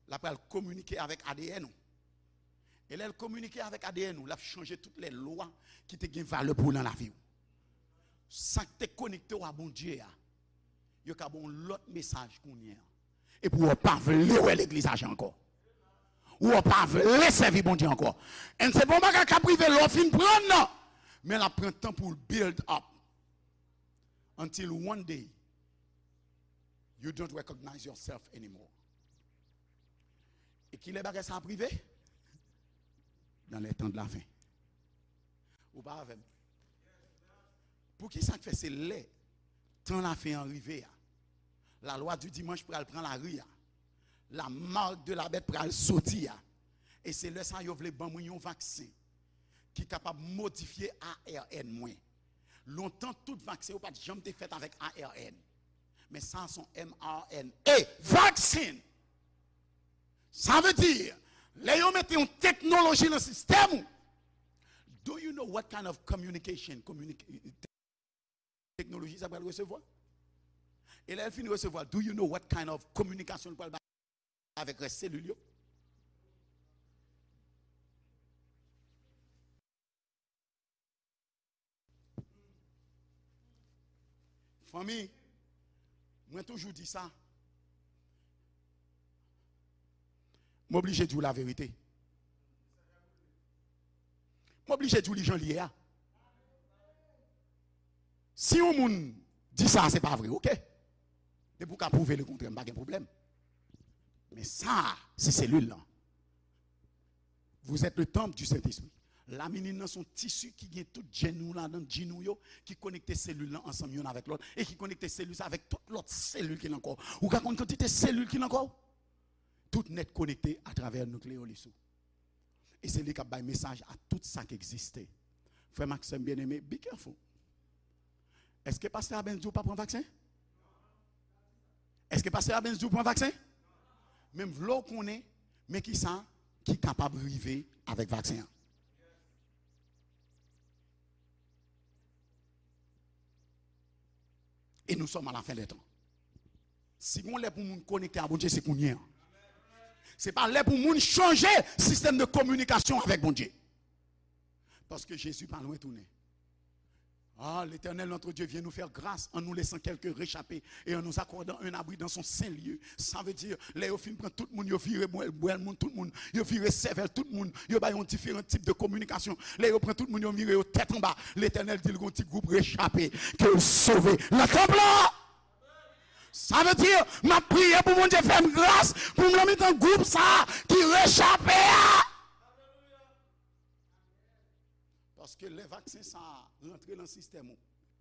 l ap pral kominike avèk A D N ou. E lè l kominike avèk A D N ou, l ap chanje tout lè lwa ki te gen valè pou ou nan lavi w. Sa k te konekte w a Bondye a, yo ka ba w yon lòt mesaj kounye a. Epi w pa vle wè legliz ajan ankò. Ou pa vle sèvi Bondye ankò. And se pa yon bagay k ap rive lè w fin pran l, non. Men l ap pran tan pou l build up. Until one day, you don't recognize yourself anymore. E kilè bagay sa ap rive? Dans les temps de la fin. Ou pa avè m? Poukisa k fè se lè tan lafen an rive a, la loi du dimanche pral pran lari a, la marque de la bête pral soti a, e se lè sa yo vle ban mwen yon vaksen ki kapab modifye A R N mwen. Lontan, tout vaksen yo pa t janm te fèt avèk A R N. Men sa se yon M R N A vaksen. Sa vle di, lè yo mete yon teknoloji nan sistèm ou, do you know what kind of communication, communica- teknoloji sa pral resevwa? E lè l fin resevwa, do you know what kind of kominikasyon l pral bay avèk rès selil yo? Fanmi, mwen toujou di sa. M oblije di w laverite. M oblije di w li jan l ye a. Si yon moun di sa, se pa vre, oke. Depi w ka pwouve lekontrè, m pa gen pwoblèm. Men sa, se selil lan. Vous êtes le temple du Saint-Esprit. Laminin nan se yon tisi ki gen tout jèn nou ladan, jin nou yo, ki konekte selil lan ansanm youn avèk lòt, e ki konekte selil sa avèk tout lòt selil ki nan kò w. Ou ka konn kantite selil ki nan kò w? Tout nèt konekte atravè nikleyolis ou. E se li k ap bay mesaj a tout sa k egziste. Frè m ak sè m byeneme, be careful. Èske pastè Abens di w pa pran vaksen? Èske pastè Abens di w pran vaksen? Men m vle w konnen, men kisa ki kapab rive avèk vaksen an. Et nous sommes à la fin des temps. Si gon lè pou moun konekte a Bondye, se kounye a. Se pa lè pou moun chanje sistèm de kominikasyon avèk Bondye. Paske Jezi pa lwen tounen. Ah, l'Éternel notre Dieu vient nous faire grâce en nous laissant quelques réchappés et en nous accordant un abri dans son saint lieu. Sa vle di, lè yo fin pran tout moun, yo vire bwèl, bwèl moun, tout moun, yo vire sèvèl tout moun, yo bay yon diferan tip de kominikasyon. Lè yo pran tout moun, yo vire yo tèt anba. Letènèl di l gon ti gwoup rechape ke l sove nan tanp lan. Sa vle di, m ap priye pou Bondye fè m gras pou m nan mitan gwoup sa a ki rechape a. Paske lè vaksen sa a rantre nan sistèm ou,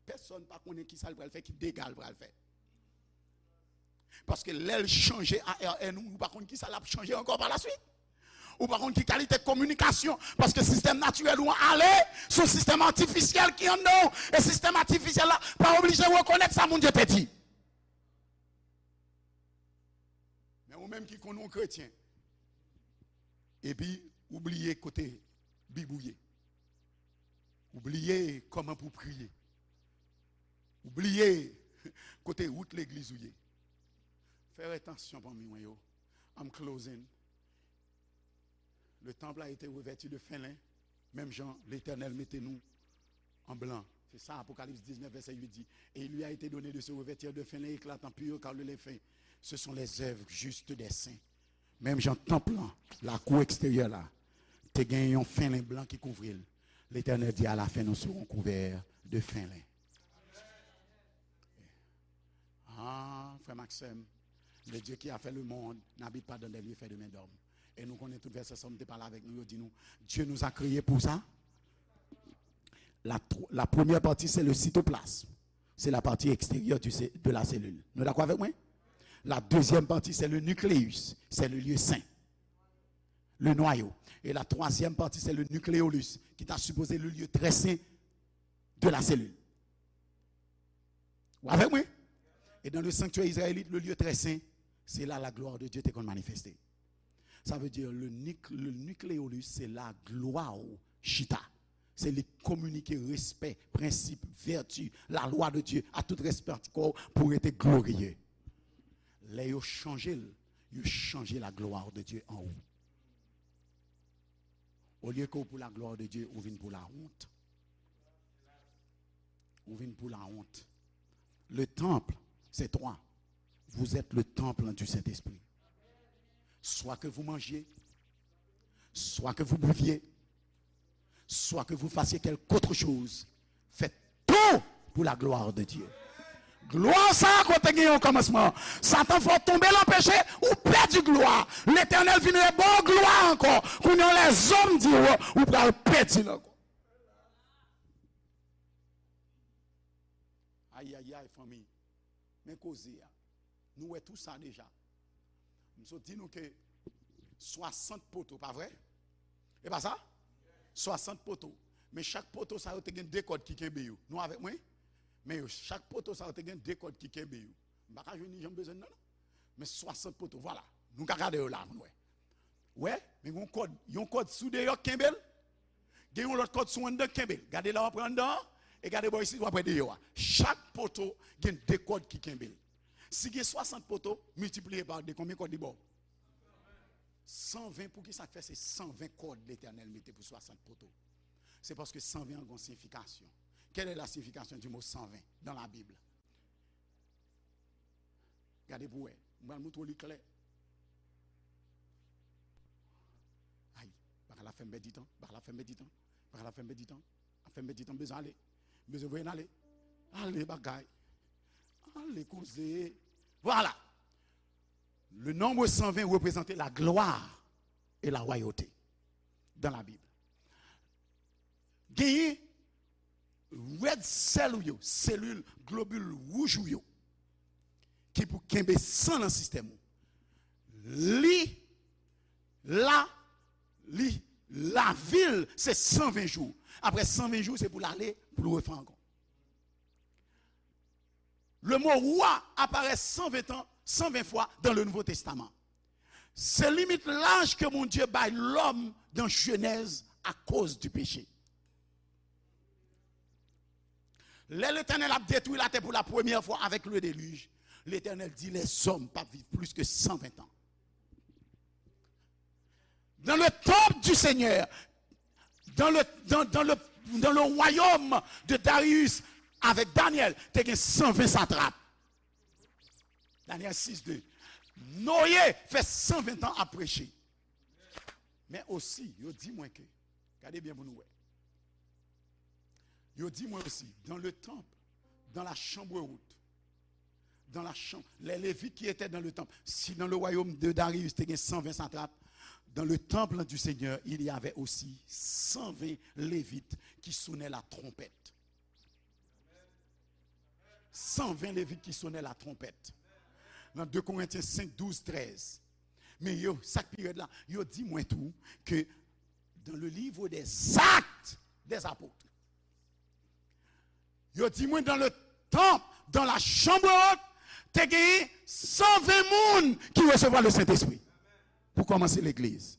pèsonn pa konnen kisa l pral fè, ki dega l pral fè. Paske lè l chanje A R N ou, ou pa konn kisa l ap chanje ankò pa la swit. Ou pa konn ki kalite kominikasyon, paske sistèm natirèl ou an ale, se yon sistèm atifisyèl ki anndan w, e sistèm atifisyèl la pa oblije rekonèt sa Bondye te di. Men ou menm ki konn ou kretyen, epi ou bliye kote Bib ou ye. Ou bliye kòman pou w priye. Ou bliye kote wout legliz ou ye. Fè atansyon, fanmi mwen yo. I'm closing. Le temple a été revêtu de fin lin, menm jan Letènèl mete nou an blan. Se sa Apokalips diznèf, vèsè uit di. Et il lui a été donné de se revêtir de fin lin éclatant, pur, car le lin fin, ce sont les œuvres justes des saints. Menm jan tanp lan, lakou eksteryè la, te gen yon fen len blan ki kouvri l. Letènèl di, à la fin, nous serons couverts de fin lin. Ah, frè m ak sè m, le Dieu qui a fait le monde n'habite pas dans des lieux faits de main d'homme. E nou konnen tout vèsè Sòm te pale avèk nou, yo di nou, Dieu nous a créés pour ça. La, tro- la première partie, c'est le cytoplasme. C'est la partie extérieure du cé- de la cellule. Nou dakò avèk mwen? La deuxième partie, c'est le nucléus. C'est le lieu saint. Le noyau. Et la troisième partie, c'est le nucleolus, qui ta supposé le lieu très saint de la cellule. Ou avèk mwen? Et dans le sanctuaire israélite, le lieu très saint, c'est là la gloire de Dieu te konn manifeste. Sa vle di, le, nic- le nucleolus, se la glwa w chita. Se li k kominike respè, prensip, vèti, la lwa de Dye a tout rès pati kò w pou rete gloriye. Lè yo chanje l, yo chanje la gloire de Dieu an ou. Olye ke w pou la gloire de Dieu, ou vin pou la honte. Ou vin pou la honte. Le temple, c'est toi. Vous êtes le temple du Saint-Esprit. Soit que vous mangiez, soit que vous buviez, soit que vous fassiez quelque autre chose, faites tout pour la gloire de Dieu. Glwa sa a kote gen yon kòmansman. Satan fè w tonbe nan peche, ou pèdi glwa. Letènèl vin reba w glwa ankò. Kounye a lèzòm di w, ou pral pèdi l ankò. Ayayay, fanmi. Men koze a. Nou wè tou sa deja. M sot di nou ke swasant poto, pa vre? E pa sa? Swasant poto. Men chak poto sa yo te gen de kòd ki kenbe yo. Nou avèk mwen? Men yo, chak poto sa yo te gen de kòd ki kenbe yo. M pa ka jwenn li jan m bezwen nan, non. Men swasant poto, vwala. Nou ka gade yo la, nou wè. Wè, men yon kòd, yon kòd sou deyò k kenbe l. Gen yon lòt kòd sou anndan k kenbe l. Gade la w ap pran anndan an, e gade bò isit w ap wè deyò a. Chak poto gen de kòd ki kenbe l. Si gen swasant poto, miltipliye pa de, konbyen kòd li ba w? San ven. Poukisa k fè se san ven kòd Letènèl mete pou swasant poto? Se paske san ven an gen yon siyifikasyon. Quelle est la signification du mot cent vingt dans la Bible? Gade pou wè. M pral montre w li klè. Ay, bagay la fè m pèdi tan. Bagay la fè m pèdi tan. Bagay la fè m pèdi tan. Ap fè m pèdi tan. M bezwen ale. M bezwen voye n ale. Ale, bagay. Ale, koze. Vwala. Le nombre cent vingt représente la gloire et la royauté dans la Bible. Genyen red cell ou yo, selil, globil wouj ou yo, ki pou kenbe san nan sistèm ou. Li la, li, lavi l, se san ven jou. Apre san ven jou, se pou l ale, pou l refè ankò. Le mot roi apparaît cent vingt ans, cent vingt fois dans le Nouveau Testament. Se limit laj ke Bondye bay lòm dan Jenèz akoz di peche. Lè Letènèl ap detwi latè pou la premyè fwa avèk le delij, Letènèl di lèzòm p ap viv plis ke san ven tan. Dans le temple du Seigneur, dans le, dans, dans le, dans le royaume de Darius, avèk Danyèl, te gen san ven satrap. Danyèl sis de. Noye fè san ven tan ap preche. Men osi, yo di mwen ke, gade byen pou nou wè. Yo di mwen osi, dans le temple, dans la chambre haute, dans la chambre, les Lévites qui étaient dans le temple. Si dans le royaume de Darius, te gen san ven satrap, dans le temple du Seigneur, il y avait aussi cent vingt Lévites qui sonnaient la trompette. San ven Levit ki sonnen la twonpèt. Nan de Korentyen senk, douz, trèz. Men yo, sa k pi rèd la, yo di mwen tou ke dans le livre des Actes des Apôtres, yo di mwen dans le temple, dans la chambre haute, te genyen san ven moun ki resevwa le Sentespri pou kòmanse legliz.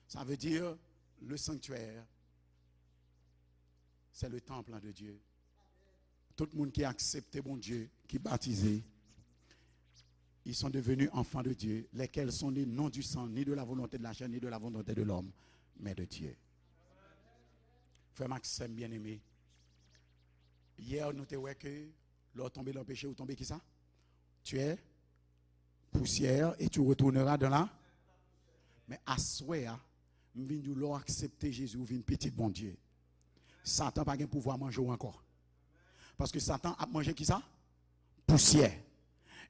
Sa vle di, le sanctuaire, c'est le temple de Dieu. Tout moun ki aksepte Bondye, ki batize, ils sont devenus enfants de Dieu, lesquels sont nés non du sang, ni de la volonté de la chair, ni de la volonté de l'homme, mais de Dieu. Frè m ak sè m byeneme, yè nou te wè ke lè w tonbe nan peche, ou tonbe kisa? Tu es poussière et tu retourneras dans la. Men aswè a, m vin di w, lè w aksepte Jezi, ou vin pitit Bondye. Satan pa gen pouvwa manje w ankò. Paske Satan ap manje kisa? Pousyè.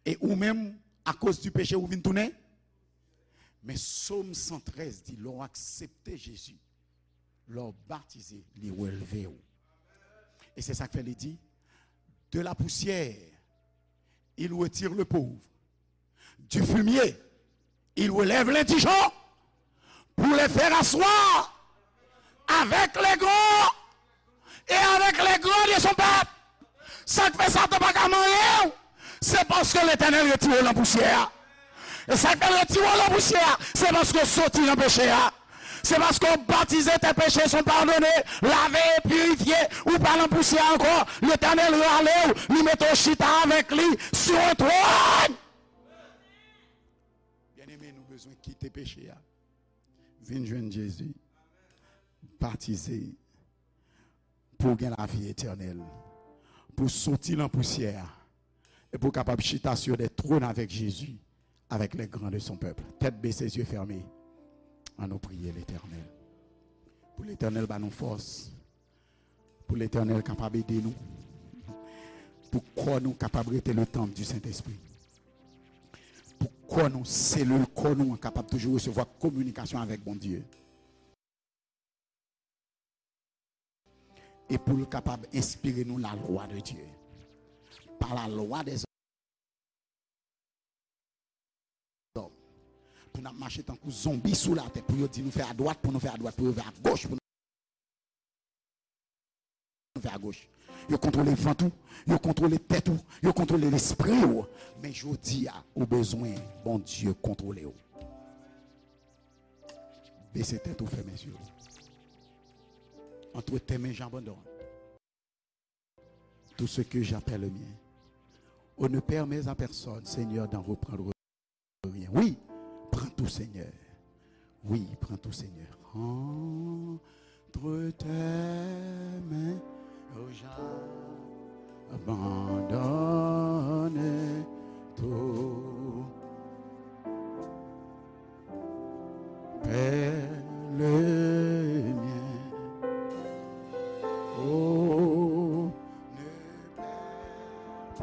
E ou menm, akoz di peche, ou vin tounen. Men Sòm san trèz di, lè w aksepte Jezi, lè w batize, li relve w. E se sa k fè li di, de la poussière, il retire le pauvre. Du fumier, il relève l'indigent pour les faire asseoir avec les grands et avec les grands de son peuple. Sa k fè Satan pa ka manyen w, se paske Letènèl retire w nan pousyè a. E sa k fè l retire w nan pousyè a, se paske w soti nan peche a. Se paske w batize, tes péchés sont pardonnés, lavé et purifié, ou pa nan pousyè ankò. Letènèl rale w, li mete w chita avèk li sur un trône. Bezwen kite peche a. Vin jwenn Jezi. Batize. Pou w gen lavi etènèl. Pou w soti nan pousyè a. E pou w kapab chita sur des trônes avec Jésus, avec les grands de son peuple. Tèt bese, zye fèmen. Ann nou priye Letènèl. Pou Letènèl ba nou fòs. Pou Letènèl kapab ede nou. Pou kò nou kapab rete le temple du Saint-Esprit. Pou kò nou, selil kò nou an kapab toujou resevwa kominikasyon avèk Bondye. E pou l kapab enspire nou la lwa de Dye. Pa la lwa dèzòm. Pou n ap mache tankou zonbi sou latè, pou yo di nou fè adwat, pou nou fè adwat, pou yo fè agoch, pou nou fè agoch. Yo kontwole vant ou, yo kontwole tèt ou, yo kontwole lespri w. Men jodi a, ou bezwen Bondye kontwole w. Bese tèt ou, fèmen zye w. Entre tes mains, j'abandonne tout ce que j'appelle le mien. Oh, ne permets à personne, Seigneur, d'en reprendre rien. Oui, prends tout, Seigneur. Oui, prends tout, Seigneur. Entre tes mains, oh, j'abandonne.